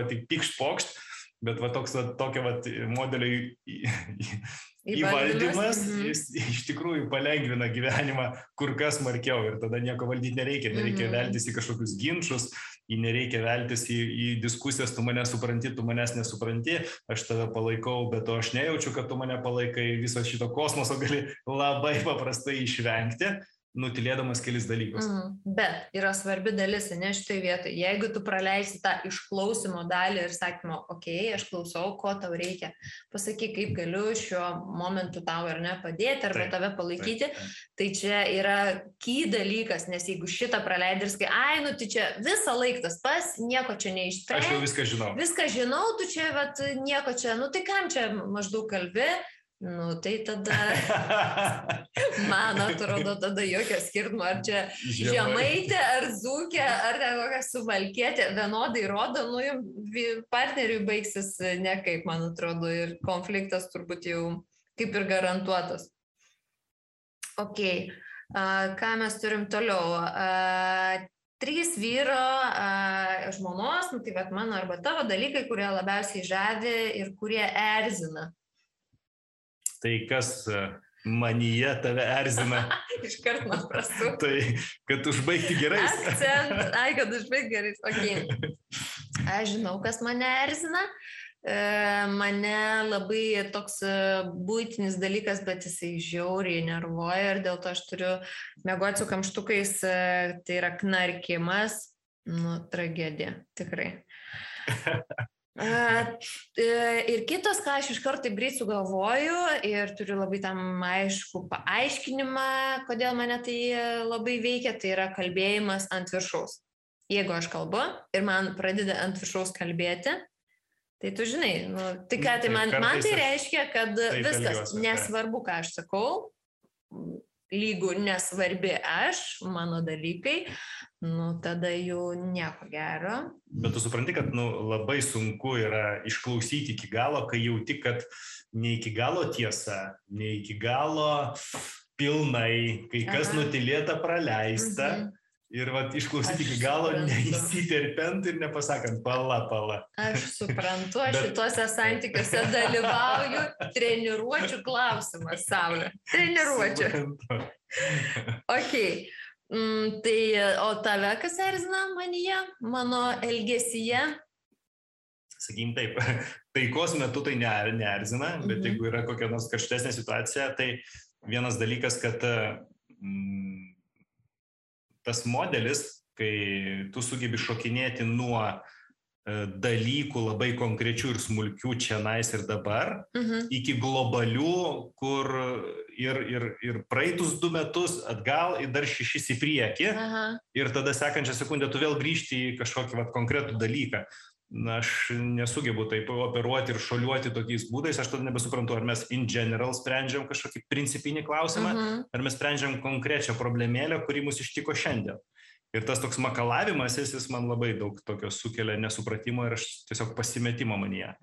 tik pikšt pokšt, bet tokio modelio įvaldymas, jis iš tikrųjų palengvina gyvenimą kur kas smarkiau ir tada nieko valdyti nereikia veltis į kažkokius ginčus, nereikia veltis į diskusijas, tu mane supranti, tu manęs nesupranti, aš tave palaikau, bet aš nejaučiu, kad tu mane palaikai, viso šito kosmoso gali labai paprastai išvengti, nutilėdamas kelis dalykus. Bet yra svarbi dalis, ne šitai vietoj. Jeigu tu praleisi tą išklausimo dalį ir sakymo, aš klausau, ko tau reikia, pasakyk, kaip galiu šiuo momentu tau ar ne padėti, arba tave palaikyti, tai čia yra key dalykas, nes jeigu šitą praleidai ir sakai, tai čia visą laiką tas pas, nieko čia neišsprendė. Aš jau viską žinau. Viską žinau, tu čia nieko čia, tai kam čia maždaug kalbi? Tai tada, man atrodo, tada jokio skirtumo, ar čia žemaitė, ar dzūkė, ar kokia suvalkietė, vienodai rodo, partneriui baigsis nekaip, man atrodo, ir konfliktas turbūt jau kaip ir garantuotas. Ką mes turim toliau? 3 vyro žmonos, tai mano arba tavo dalykai, kurie labiausiai žavi ir kurie erzina. Tai kas manyje tave erzina? Iškart man prastu. Tai, kad užbaigti gerais. Kad užbaigti gerais. Aš žinau, kas mane erzina. Mane labai toks buitinis dalykas, bet jisai žiauriai nervuoja ir dėl to aš turiu miegoti su kamštukais, tai yra knarkimas. Tragedija, tikrai. Ir kitas, ką aš iš karto greit sugalvoju ir turiu labai tam aišku paaiškinimą, kodėl mane tai labai veikia, tai yra kalbėjimas ant viršaus. Jeigu aš kalbu ir man pradeda ant viršaus kalbėti, Tai tu žinai, tai ką, tai man tai reiškia, kad viskas, nesvarbu, ką aš sakau, lygų nesvarbi aš, mano dalykai, tada jau nieko gero. Bet tu supranti, kad labai sunku yra išklausyti iki galo, kai jauti, kad ne iki galo tiesa, ne iki galo pilnai, kai kas nutylėta praleista. Ir išklausyti iki galo, neįsiterpiant ir nepasakant, pala. Aš suprantu, aš šituose santykiuose dalyvauju, treniruočių klausimas, Saulė. Treniruočių. Ok. Tai, o tave kas erzina manyje, mano elgesyje? Sakykim taip, taikos metu tai neerzina, bet jeigu yra kokia nors karštesnė situacija, tai vienas dalykas, kad tas modelis, kai tu sugebi šokinėti nuo dalykų labai konkrečių ir smulkių čianais ir dabar, iki globalių, kur ir praeitus 2 metus atgal, ir dar 6 į priekį, ir tada sekančią sekundę tu vėl grįžti į kažkokį konkretų dalyką. Aš nesugebu taip operuoti ir šoliuoti tokiais būdais, aš tada nebesuprantu, ar mes in general sprendžiam kažkokį principinį klausimą, ar mes sprendžiam konkrečią problemėlę, kuri mus ištiko šiandien. Ir tas toks makalavimas, jis man labai daug tokio sukelia nesupratimo ir aš tiesiog pasimetimo manyje.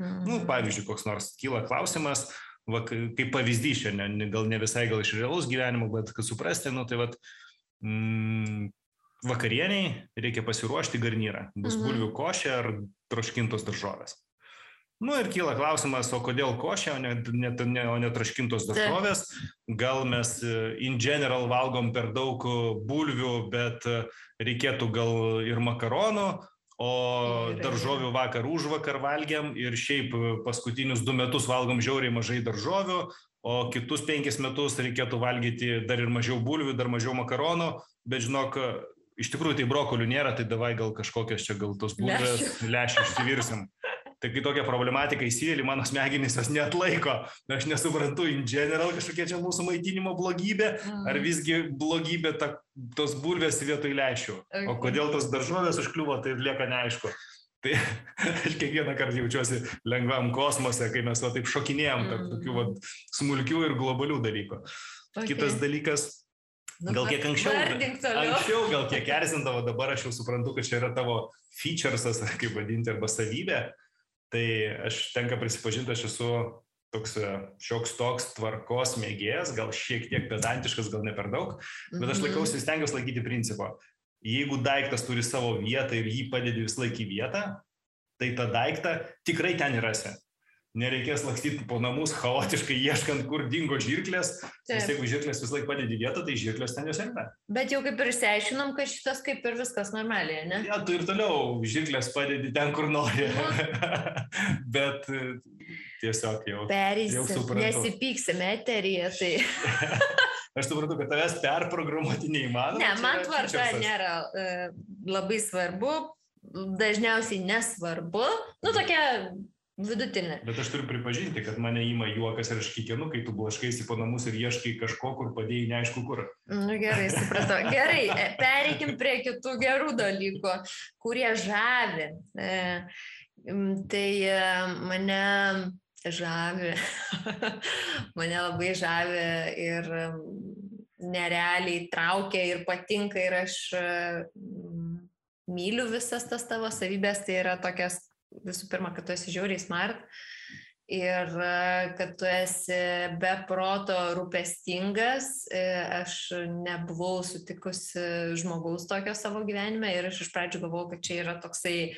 Pavyzdžiui, koks nors kyla klausimas, kaip pavyzdys šiandien, gal ne visai gal iš realaus gyvenimo, bet kad suprasti, vakarieniai reikia pasiruošti garnyrą. Bus bulvių košė ar troškintos daržovės. Ir kyla klausimas, o kodėl košė, o ne troškintos daržovės? Gal mes in general valgom per daug bulvių, bet reikėtų gal ir makaronų, o daržovių vakar užvakar valgiam ir šiaip paskutinius 2 metus valgom žiauriai mažai daržovių, o kitus 5 metus reikėtų valgyti dar ir mažiau bulvių, dar mažiau makaronų, bet žinok, iš tikrųjų tai brokolių nėra, tai davai gal kažkokias čia gal tos bulvės lęšių išsivirsim. Tai kai tokia problematika įsivėlė, mano smegenys jos neatlaiko. Aš nesuprantu in general kažkokia čia mūsų maitinimo blogybė, ar visgi blogybė tos bulvės vietoj lęšių. O kodėl tos daržovės užkliuvo, tai lieka neaišku. Tai aš kiekvieną kartą jaučiuosi lengvam kosmose, kai mes taip šokinėjom tarp tokių smulkių ir globalių dalykų. Kitas dalykas, gal kiek anksčiau gal kiek erzindavo, dabar aš jau suprantu, kad čia yra tavo featuresas, kaip vadinti, arba savybė. Tai aš tenka prisipažinti, aš esu toks šioks toks tvarkos mėgėjas, gal šiek tiek pedantiškas, gal ne per daug, bet aš stengiuosi laikyti principą. Jeigu daiktas turi savo vietą ir jį padedi vis laik į vietą, tai tą daiktą tikrai ten rasi. Nereikės lakstyti po namus chaotiškai ieškant, kur dingo žirklės, nes jeigu žirklės vis laik padedi vietą, tai žirklės ten jos yra. Bet jau kaip ir išsiaiškinom, kad šitas kaip ir viskas normaliai, ne? Ja, tu ir toliau žirklės padedi ten, kur nori. Bet tiesiog jau suprantu. Nesipyksime eteryje, tai... Aš suprantu, kad tavęs perprogramuoti neįmanoma. Ne, man tvarka nėra labai svarbu, dažniausiai nesvarbu, tokia... vidutinė. Bet aš turiu pripažinti, kad mane ima juokas ir aš kikenu, kai tu blaškaisi po namus ir ieškai kažko, kur padėjai neaišku kur. Gerai, supratau. Gerai, pereikim prie kitų gerų dalykų, kurie žavi. Tai mane žavi. Mane labai žavi ir nerealiai traukia ir patinka ir aš myliu visas tas tavo savybės, tai yra tokias visų pirma, kad tu esi žiauriai smart ir kad tu esi be proto rūpestingas. Aš nebuvau sutikusi žmogaus tokio savo gyvenime ir aš iš pradžių galvojau, kad čia yra toksai,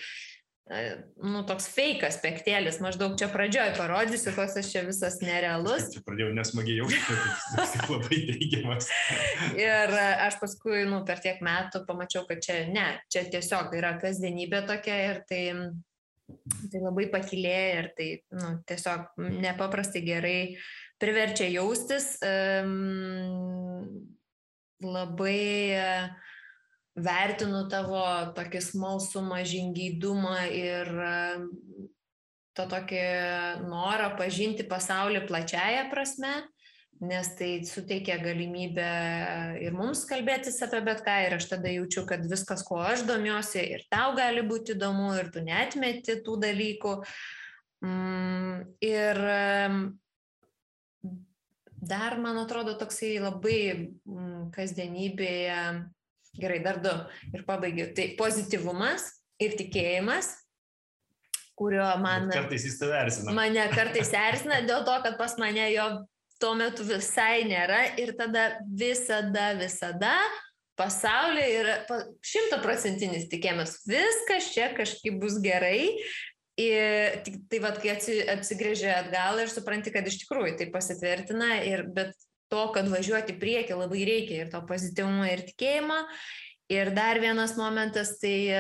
toks fake aspektėlis. Maždaug čia pradžioj parodysiu, koks aš čia visas nerealus. Čia pradėjau nesmagiai jausti, kad labai teigiamas. Ir aš paskui, per tiek metų pamačiau, kad čia tiesiog yra kasdienybė tokia ir tai labai pakilėja ir tai tiesiog nepaprastai gerai priverčia jaustis. Labai vertinu tavo tokį smalsumą, žingeidumą ir to tokį norą pažinti pasaulį plačiaja prasme, nes tai suteikia galimybę ir mums kalbėtis apie bet ką ir aš tada jaučiu, kad viskas, kuo aš domiuosi ir tau gali būti įdomu ir tu neatmeti tų dalykų. Ir dar, man atrodo, toksai labai kasdienybėje, gerai, dar 2 ir pabaigiu, tai pozityvumas ir tikėjimas, kurio man... Bet kartais jis tave erzina. Mane kartais erzina dėl to, kad pas mane jo tuo metu visai nėra ir tada visada pasaulyje yra 100% tikėjimas, viskas čia kažkaip bus gerai. Ir tai vat, kai atsigrėžia atgal ir supranti, kad iš tikrųjų tai pasitvirtina, bet to, kad važiuoti priekį labai reikia ir to pozityvumo ir tikėjimo. Ir dar vienas momentas, tai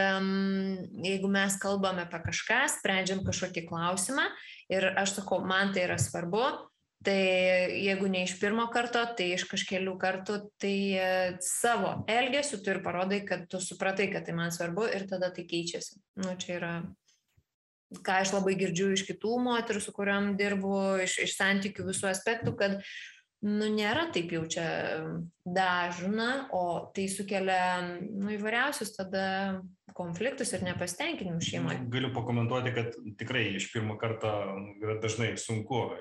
jeigu mes kalbame apie kažką, sprendžiam kažkokį klausimą ir aš sakau, man tai yra svarbu, tai jeigu ne iš pirmo karto, tai iš kažkelių kartų, tai savo elgesiu tu ir parodai, kad tu supratai, kad tai man svarbu ir tada tai keičiasi. Nu, čia yra, ką aš labai girdžiu iš kitų moterų, su kuriam dirbu, iš santykių visų aspektų, kad nėra taip jau čia dažna, o tai sukelia įvairiausius tada konfliktus ir nepasitenkinimus šeimoje. Galiu pakomentuoti, kad tikrai iš pirmo karto yra dažnai sunku.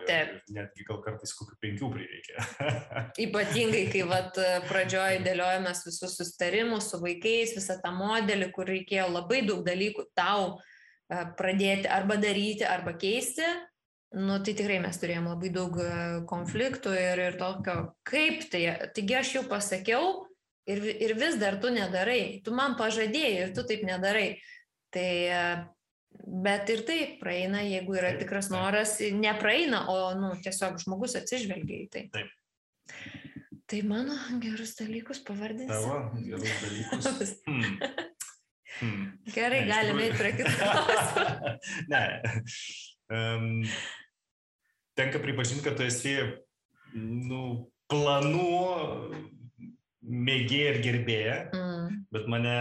Netgi gal kartais kokių 5 prireikia. Ypatingai, kai pradžioje dėliojamės visus susitarimus su vaikais, visą tą modelį, kur reikėjo labai daug dalykų tau pradėti arba daryti, arba keisti. Tai tikrai mes turėjom labai daug konfliktų ir tokio, kaip tai, taigi aš jau pasakiau ir vis dar tu nedarai, tu man pažadėjai ir tu taip nedarai. Tai, bet ir taip praeina, jeigu yra tikras noras, nepraeina, o tiesiog žmogus atsižvelgia į tai. Taip. Tai mano gerus dalykus pavardinsi. Tavo gerus dalykus. Gerai, galime eiti prie kitos. Ne. Tenka pripažinti, kad tu esi planų mėgėja ir gerbėja, bet mane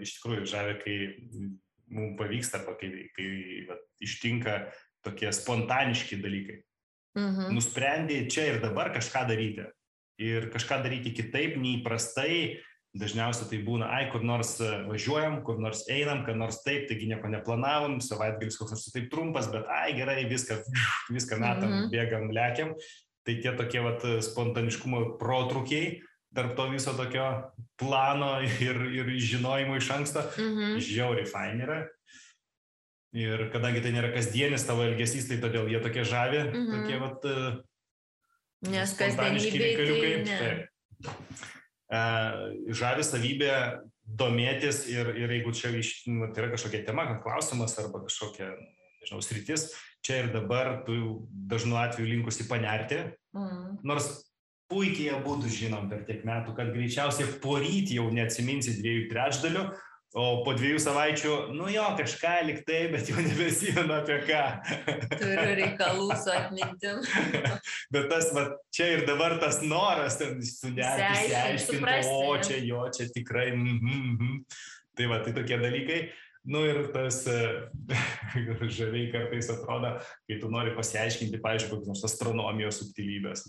iš tikrųjų žavi, kai mums pavyksta, arba kai ištinka tokie spontaniški dalykai. Nusprendė čia ir dabar kažką daryti. Ir kažką daryti kitaip, neįprastai. Dažniausiai tai būna, kur nors važiuojam, kur nors einam, kad nors taip, taigi nieko neplanavom, savaitgalis koks nors taip trumpas, bet gerai, viską metam, bėgam, lekiam. Tai tie tokie spontaniškumo protrukiai tarp to viso tokio plano ir žinojimo iš anksto, žiauriai fain yra. Ir kadangi tai nėra kasdienis tavo elgesys, tai todėl jie tokie žavi, tokie nes spontaniški reikaliukai. Ne. Žavi savybė domėtis ir jeigu čia tai yra kažkokia tema, klausimas arba kažkokia, nežinau, sritis, čia ir dabar tu dažnu atveju linkusi panerti, nors puikiai abudu žinom per tiek metų, kad greičiausiai poryt jau neatsiminsi 2/3, o po 2 savaičių, kažką lyg tai, bet jau nebesimenu apie ką. Turiu reikalų su atmintim. Bet tas, čia ir dabar tas noras, sunerti, aiškinti, čia tikrai, Tai tai tokie dalykai. Ir tas žaviai kartais atrodo, kai tu nori pasiaiškinti, pavyzdžiui, kokios nors astronomijos subtilybės.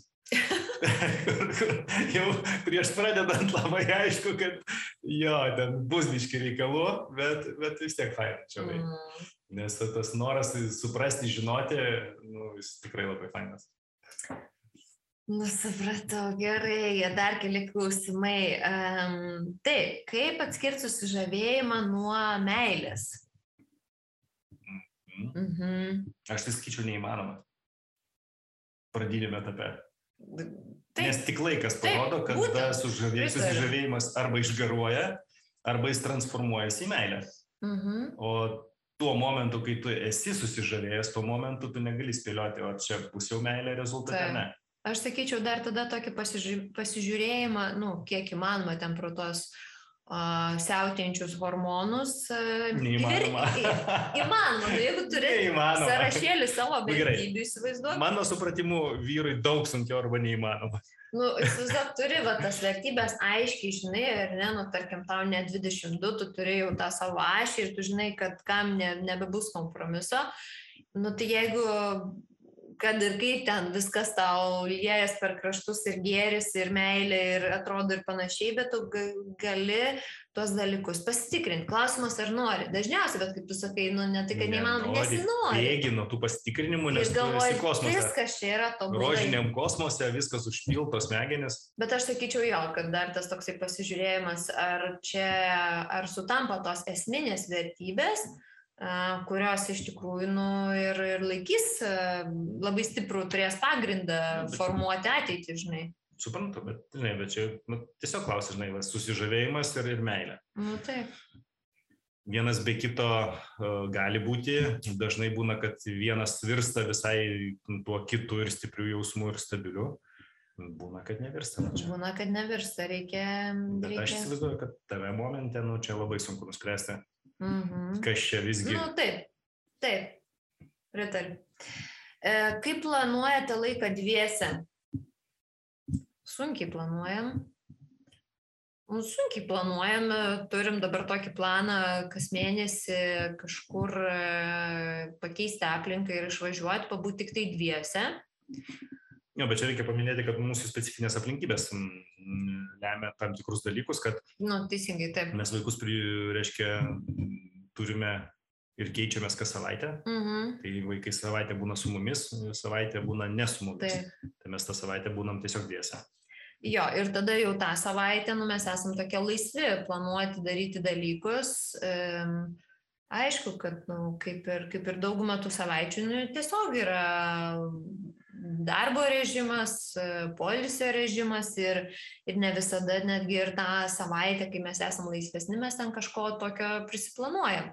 Jau prieš pradedant labai aišku, kad ten bus biški reikalų, bet vis tiek fain čia. Nes tas noras suprasti, žinoti, jis tikrai labai fainas. Supratau, gerai, dar keli klausimai. Taip, kaip atskirti susižavėjimą nuo meilės? Aš tai sakyčiau neįmanoma. Pradinėme etape. Nes tik laikas parodo, kad susižavėjimas arba išgaruoja, arba jis transformuojasi į meilę. O tuo momentu, kai tu esi susižavėjęs, tuo momentu tu negali spėlioti, o čia bus jau meilė rezultate, ne. Aš sakyčiau dar tada tokį pasižiūrėjimą, kiek įmanoma ten pro tos siautėjančius hormonus. Neįmanoma. Įmanoma, jeigu turi sąrašėlį savo vertybių, įsivaizduok. Mano supratimu, vyrui daug sunkiau arba neįmanoma. Įsivaizduok, turi tas vertybės aiškiai, žinai, ir tarkim, tau ne 22, tu turi jau tą savo ašį ir tu žinai, kad kam nebebus kompromiso. Tai jeigu kad ir kaip ten viskas tau liejas per kraštus ir gėris, ir meilė, ir atrodo ir panašiai, bet tu gali tuos dalykus pasitikrinti. Klausimas, ar nori. Dažniausiai, bet kaip tu sakai, ne tai, kad neįmanoma, nesinori. Bėgi nuo tų pasitikrinimų, nes galvoji, kosmose. Viskas čia yra tobulai. Rožiniam kosmose viskas užpiltos smegenis. Bet aš sakyčiau jo, kad dar tas toksai pasižiūrėjimas, ar sutampa tos esminės vertybės, kurios iš tikrųjų ir laikys labai stiprų, turės pagrindą formuoti ateitį, žinai. Suprantu, bet čia tiesiog klausia, žinai, susižavėjimas ir meilė. Taip. Vienas be kito gali būti, dažnai būna, kad vienas virsta visai tuo kitu ir stiprių jausmų ir stabiliu. Būna, kad nevirsta. Būna, kad nevirsta, reikia... Bet aš įsivaizduoju, kad tave momente, čia labai sunku nuspręsti. Kas čia visgi? Taip, pritariu. Kaip planuojate laiką dviese? Sunkiai planuojam. Turim dabar tokį planą, kas mėnesį kažkur pakeisti aplinką ir išvažiuoti, pabūti tik tai dviese. Jo, bet čia reikia paminėti, kad mūsų specifinės aplinkybės lemia tam tikrus dalykus, kad teisingai, taip. Mes vaikus, turime ir keičiamės kas savaitę. Tai vaikai savaitę būna su mumis, savaitę būna ne su mumis. Tai mes tą savaitę būnam tiesiog dviese. Jo, ir tada jau tą savaitę mes esam tokie laisvi planuoti, daryti dalykus. Aišku, kad kaip ir daugumą tų savaičių tiesiog yra darbo režimas, poilsio režimas ir ne visada netgi ir tą savaitę, kai mes esam laisvesni, mes ten kažko tokio prisiplanuojam.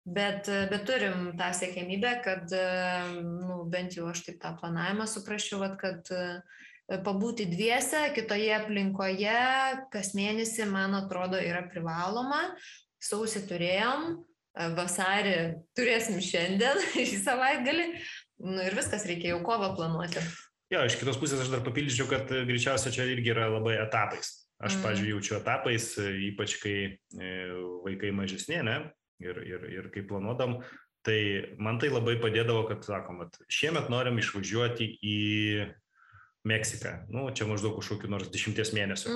Bet turim tą siekiamybę, kad bent jau aš taip tą planavimą suprasčiau, kad pabūti dviese, kitoje aplinkoje, kas mėnesį, man atrodo, yra privaloma. Sausį turėjom, vasarį turėsim šiandien, šį savaitgalį. Ir viskas, reikia jau kovą planuoti. Jo, iš kitos pusės aš dar papildyčiau, kad greičiausia čia irgi yra labai etapais. Aš, pavyzdžiui, jaučiu etapais, ypač kai vaikai mažesni, ne? Ir kai planuodam, tai man tai labai padėdavo, kad sakom, šiemet norim išvažiuoti į Meksiką. Čia maždaug kažkokiu nors 10 mėnesių.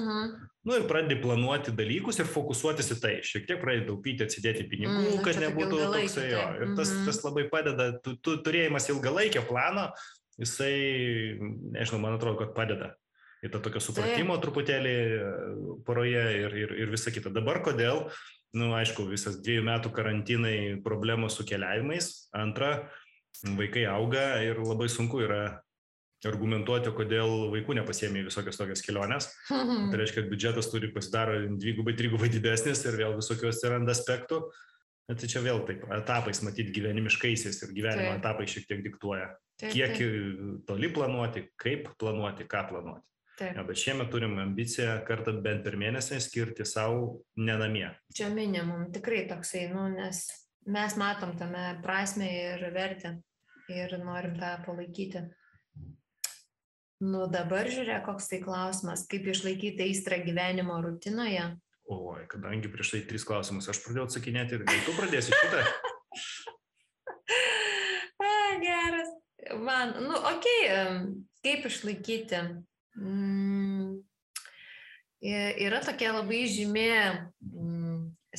Ir pradedi planuoti dalykus ir fokusuotis į tai. Šiek tiek pradedi taupyti, atsidėti pinigų, kad nebūtų toksai jo. Ir tas labai padeda. Turėjimas ilgalaikio plano, jisai, nežinau, man atrodo, kad padeda. Ir tą tokio supratimo truputėlį poroje ir visa kita. Dabar kodėl? Aišku, visas 2 metų karantinai problemos su keliavimais. Antra, vaikai auga ir labai sunku yra argumentuoti, kodėl vaikų nepasiėmė visokios tokias kelionės. Tai reiškia, kad biudžetas turi pasidaro 2-3 didesnis ir vėl visokios atsiranda aspektų. Tai čia vėl taip, etapais matyti gyvenimiškaisiais ir gyvenimo etapai šiek tiek diktuoja. Kiek toli planuoti, kaip planuoti, ką planuoti. Ja, bet šiemet turim ambiciją kartą bent per mėnesį skirti savo nenamie. Čia minimum tikrai toksai, nes mes matom tame prasmę ir vertę ir norim tą palaikyti. Dabar žiūrėk, koks tai klausimas, kaip išlaikyti aistrą gyvenimo rutinoje? Oi, kadangi prieš tai 3 klausimus aš pradėjau atsakinėti, gal tu pradėsi šitą? Geras. Man, kaip išlaikyti? Yra tokia labai žymi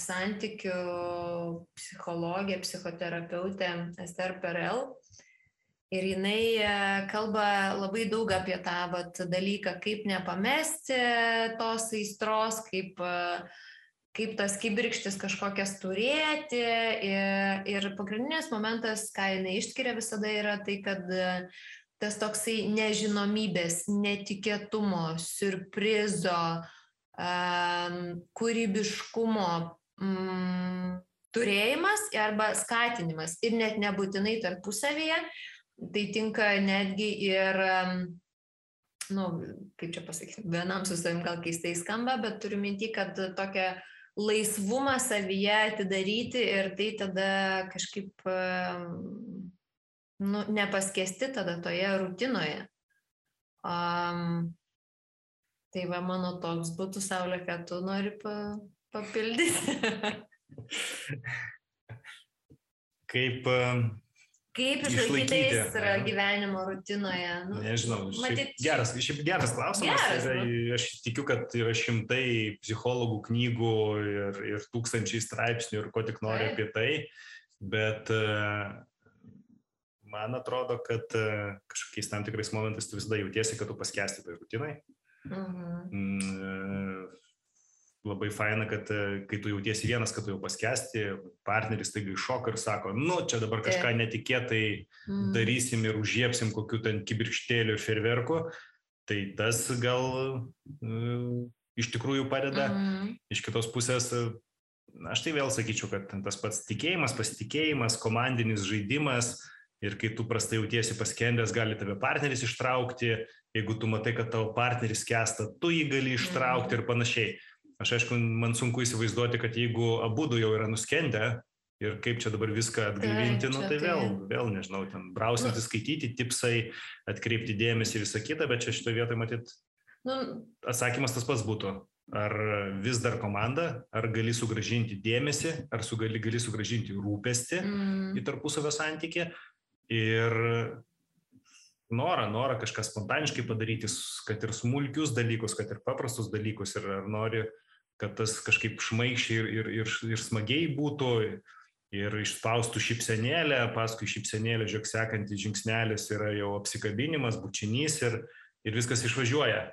santykių psichologė, psichoterapeutė Esther Perel. Ir jinai kalba labai daug apie tą dalyką, kaip nepamesti tos aistros, kaip tas kibirkštis kažkokias turėti. Ir pagrindinis momentas, ką jinai išskiria visada, yra tai, kad tas toksai nežinomybės, netikėtumo, siurprizo, kūrybiškumo turėjimas arba skatinimas ir net nebūtinai tarpusavyje. Tai tinka netgi ir, kaip čia pasakyti, vienam su savim gal keistai skamba, bet turiu minti, kad tokią laisvumą savyje atidaryti ir tai tada kažkaip nepaskesti tada toje rutinoje. Tai va, mano toks būtų, Saulė, kad tu nori papildyti. Kaip išlaikyti gyvenimo rutinoje? Nežinau, geras klausimas. Aš tikiu, kad yra šimtai psichologų knygų ir tūkstančiai straipsnių ir ko tik nori apie tai, bet man atrodo, kad kažkokiais tam tikrais momentais tu visada jautiesi, kad tu paskęsti toj rutinai. Labai faina, kad kai tu jautiesi vienas, kad tu jau paskęsti, partneris taigi iššoka ir sako, čia dabar kažką netikėtai darysim ir užžiepsim kokių ten kibirkštėlių ir ferverkų, tai tas gal iš tikrųjų padeda. Iš kitos pusės, aš tai vėl sakyčiau, kad tas pats tikėjimas, pasitikėjimas, komandinis žaidimas ir kai tu prastai jautiesi paskendęs, gali tave partneris ištraukti, jeigu tu matai, kad tavo partneris skęsta, tu jį gali ištraukti ir panašiai. Aš aišku, man sunku įsivaizduoti, kad jeigu abudu jau yra nuskendę ir kaip čia dabar viską atgaivinti, tai vėl nežinau, ten brausinti, skaityti, tipsai, atkreipti dėmesį ir visą kitą, bet čia šitoje vietoje matyt atsakymas tas pats būtų. Ar vis dar komanda, ar gali sugrąžinti dėmesį, ar gali sugrąžinti rūpestį į tarpusavio santykį ir norą kažką spontaniškai padaryti, kad ir smulkius dalykus, kad ir paprastus dalykus, ir ar nori, kad tas kažkaip šmaikščiai ir smagiai būtų, ir išspaustų šypsenėlę, paskui šypsenėlę, žiūrėk, sekantis žingsnelis yra jau apsikabinimas, bučinys ir viskas išvažiuoja.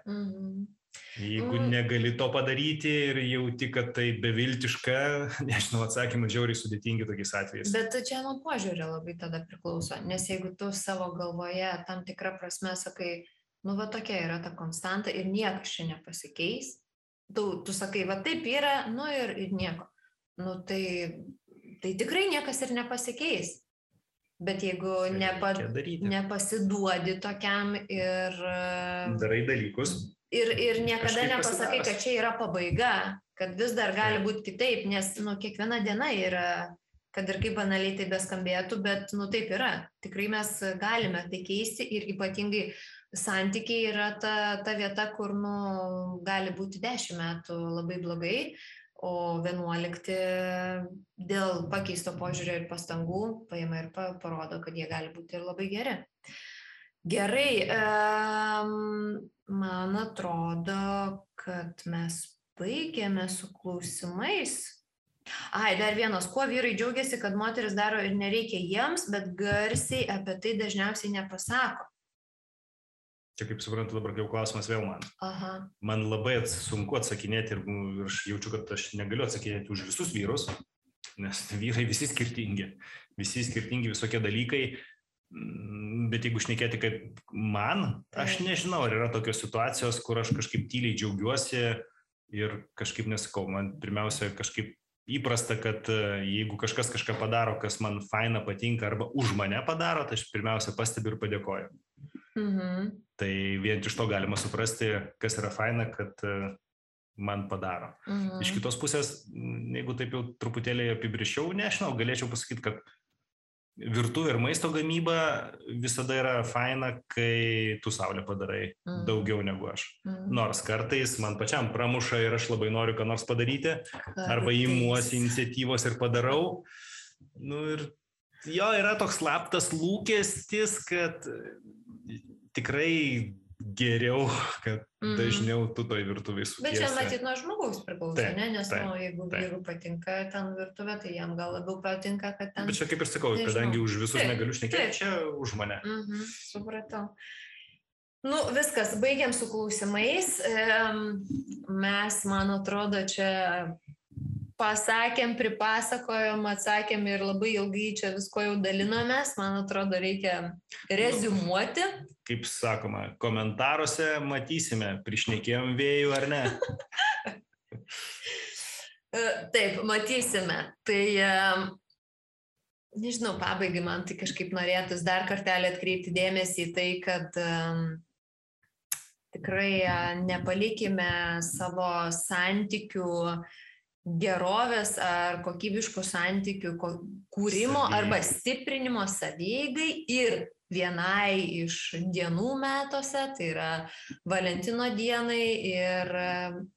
Jeigu negali to padaryti ir jauti, kad tai beviltiška, nežinau, atsakymai žiauriai sudėtingi tokiais atvejais. Bet čia nuo požiūrio labai tada priklauso, nes jeigu tu savo galvoje tam tikrą prasme sakai, va tokia yra ta konstanta ir niekas čia nepasikeis, tu sakai, va taip yra, ir nieko. Tai tikrai niekas ir nepasikeis. Bet jeigu nepasiduodi tokiam ir darai dalykus. Ir niekada nepasakai, kad čia yra pabaiga, kad vis dar gali būti kitaip, nes kiekviena diena yra, kad ir kaip banaliai tai beskambėtų, bet taip yra. Tikrai mes galime tai keisti ir ypatingai santykiai yra ta vieta, kur gali būti 10 metų labai blogai, o 11 dėl pakeisto požiūrio ir pastangų paima ir parodo, kad jie gali būti ir labai geri. Gerai, man atrodo, kad mes baigėme su klausimais. Dar vienas, kuo vyrai džiaugiasi, kad moteris daro ir nereikia jiems, bet garsiai apie tai dažniausiai nepasako. Čia kaip suprantu, dabar jau klausimas vėl man. Man labai sunku atsakinėti ir aš jaučiu, kad aš negaliu atsakinėti už visus vyrus, nes vyrai visi skirtingi visokie dalykai. Bet jeigu šnekėti kaip man, aš nežinau, ar yra tokios situacijos, kur aš kažkaip tyliai džiaugiuosi ir kažkaip nesakau. Man pirmiausia kažkaip įprasta, kad jeigu kažkas kažką padaro, kas man faina patinka arba už mane padaro, tai aš pirmiausia pastebiu ir padėkoju. Tai vien iš to galima suprasti, kas yra faina, kad man padaro. Iš kitos pusės, jeigu taip jau truputėlį apibrėžčiau, nežinau, galėčiau pasakyti, kad virtuvė ir maisto gamyba visada yra faina, kai tu saulė padarai daugiau negu aš. Nors kartais man pačiam pramuša ir aš labai noriu ką nors padaryti, arba imuosi iniciatyvos ir padarau. Ir jo yra toks slaptas lūkestis, kad tikrai geriau, kad dažniau tu toj virtuvėj sukiesi. Bet čia matyt nuo žmogaus priklauso, ne? Nes jeigu vyrų patinka ten virtuvė, tai jam gal labiau patinka, kad ten... Bet čia kaip ir sakau, kadangi už visus negaliu šnekėti, čia už mane. Supratau. Viskas, baigiam su klausimais. Mes, man atrodo, čia pasakėm, pripasakojom, atsakėm ir labai ilgai čia visko jau dalinomės. Man atrodo, reikia reziumuoti. Kaip sakoma, komentaruose matysime, prišnekėjom vėjų ar ne. Taip, matysime. Tai, nežinau, pabaigai man tai kažkaip norėtus dar kartelį atkreipti dėmesį į tai, kad tikrai nepalikime savo santykių gerovės ar kokybiškų santykių kūrimo arba stiprinimo savieigai ir vienai iš dienų metuose, tai yra Valentino dienai, ir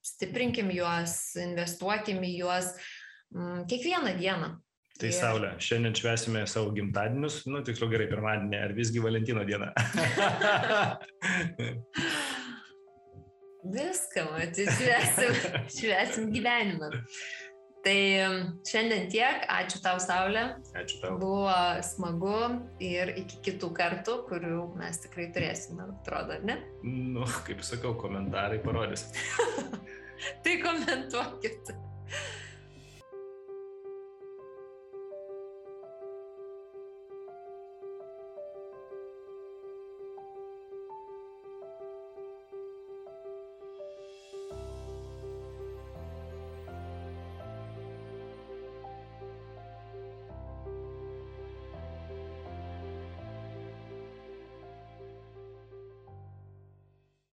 stiprinkim juos, investuokim į juos kiekvieną dieną. Tai Saulė, šiandien švęsime savo gimtadienius, tiksliau gerai, pirmadienį, ar visgi Valentino dieną? Viską, švęsim gyvenimą. Tai šiandien tiek, ačiū tau, Saulė. Ačiū tau. Buvo smagu ir iki kitų kartų, kurių mes tikrai turėsime, atrodo, ne? Kaip sakau, komentarai parodys. Tai komentuokit.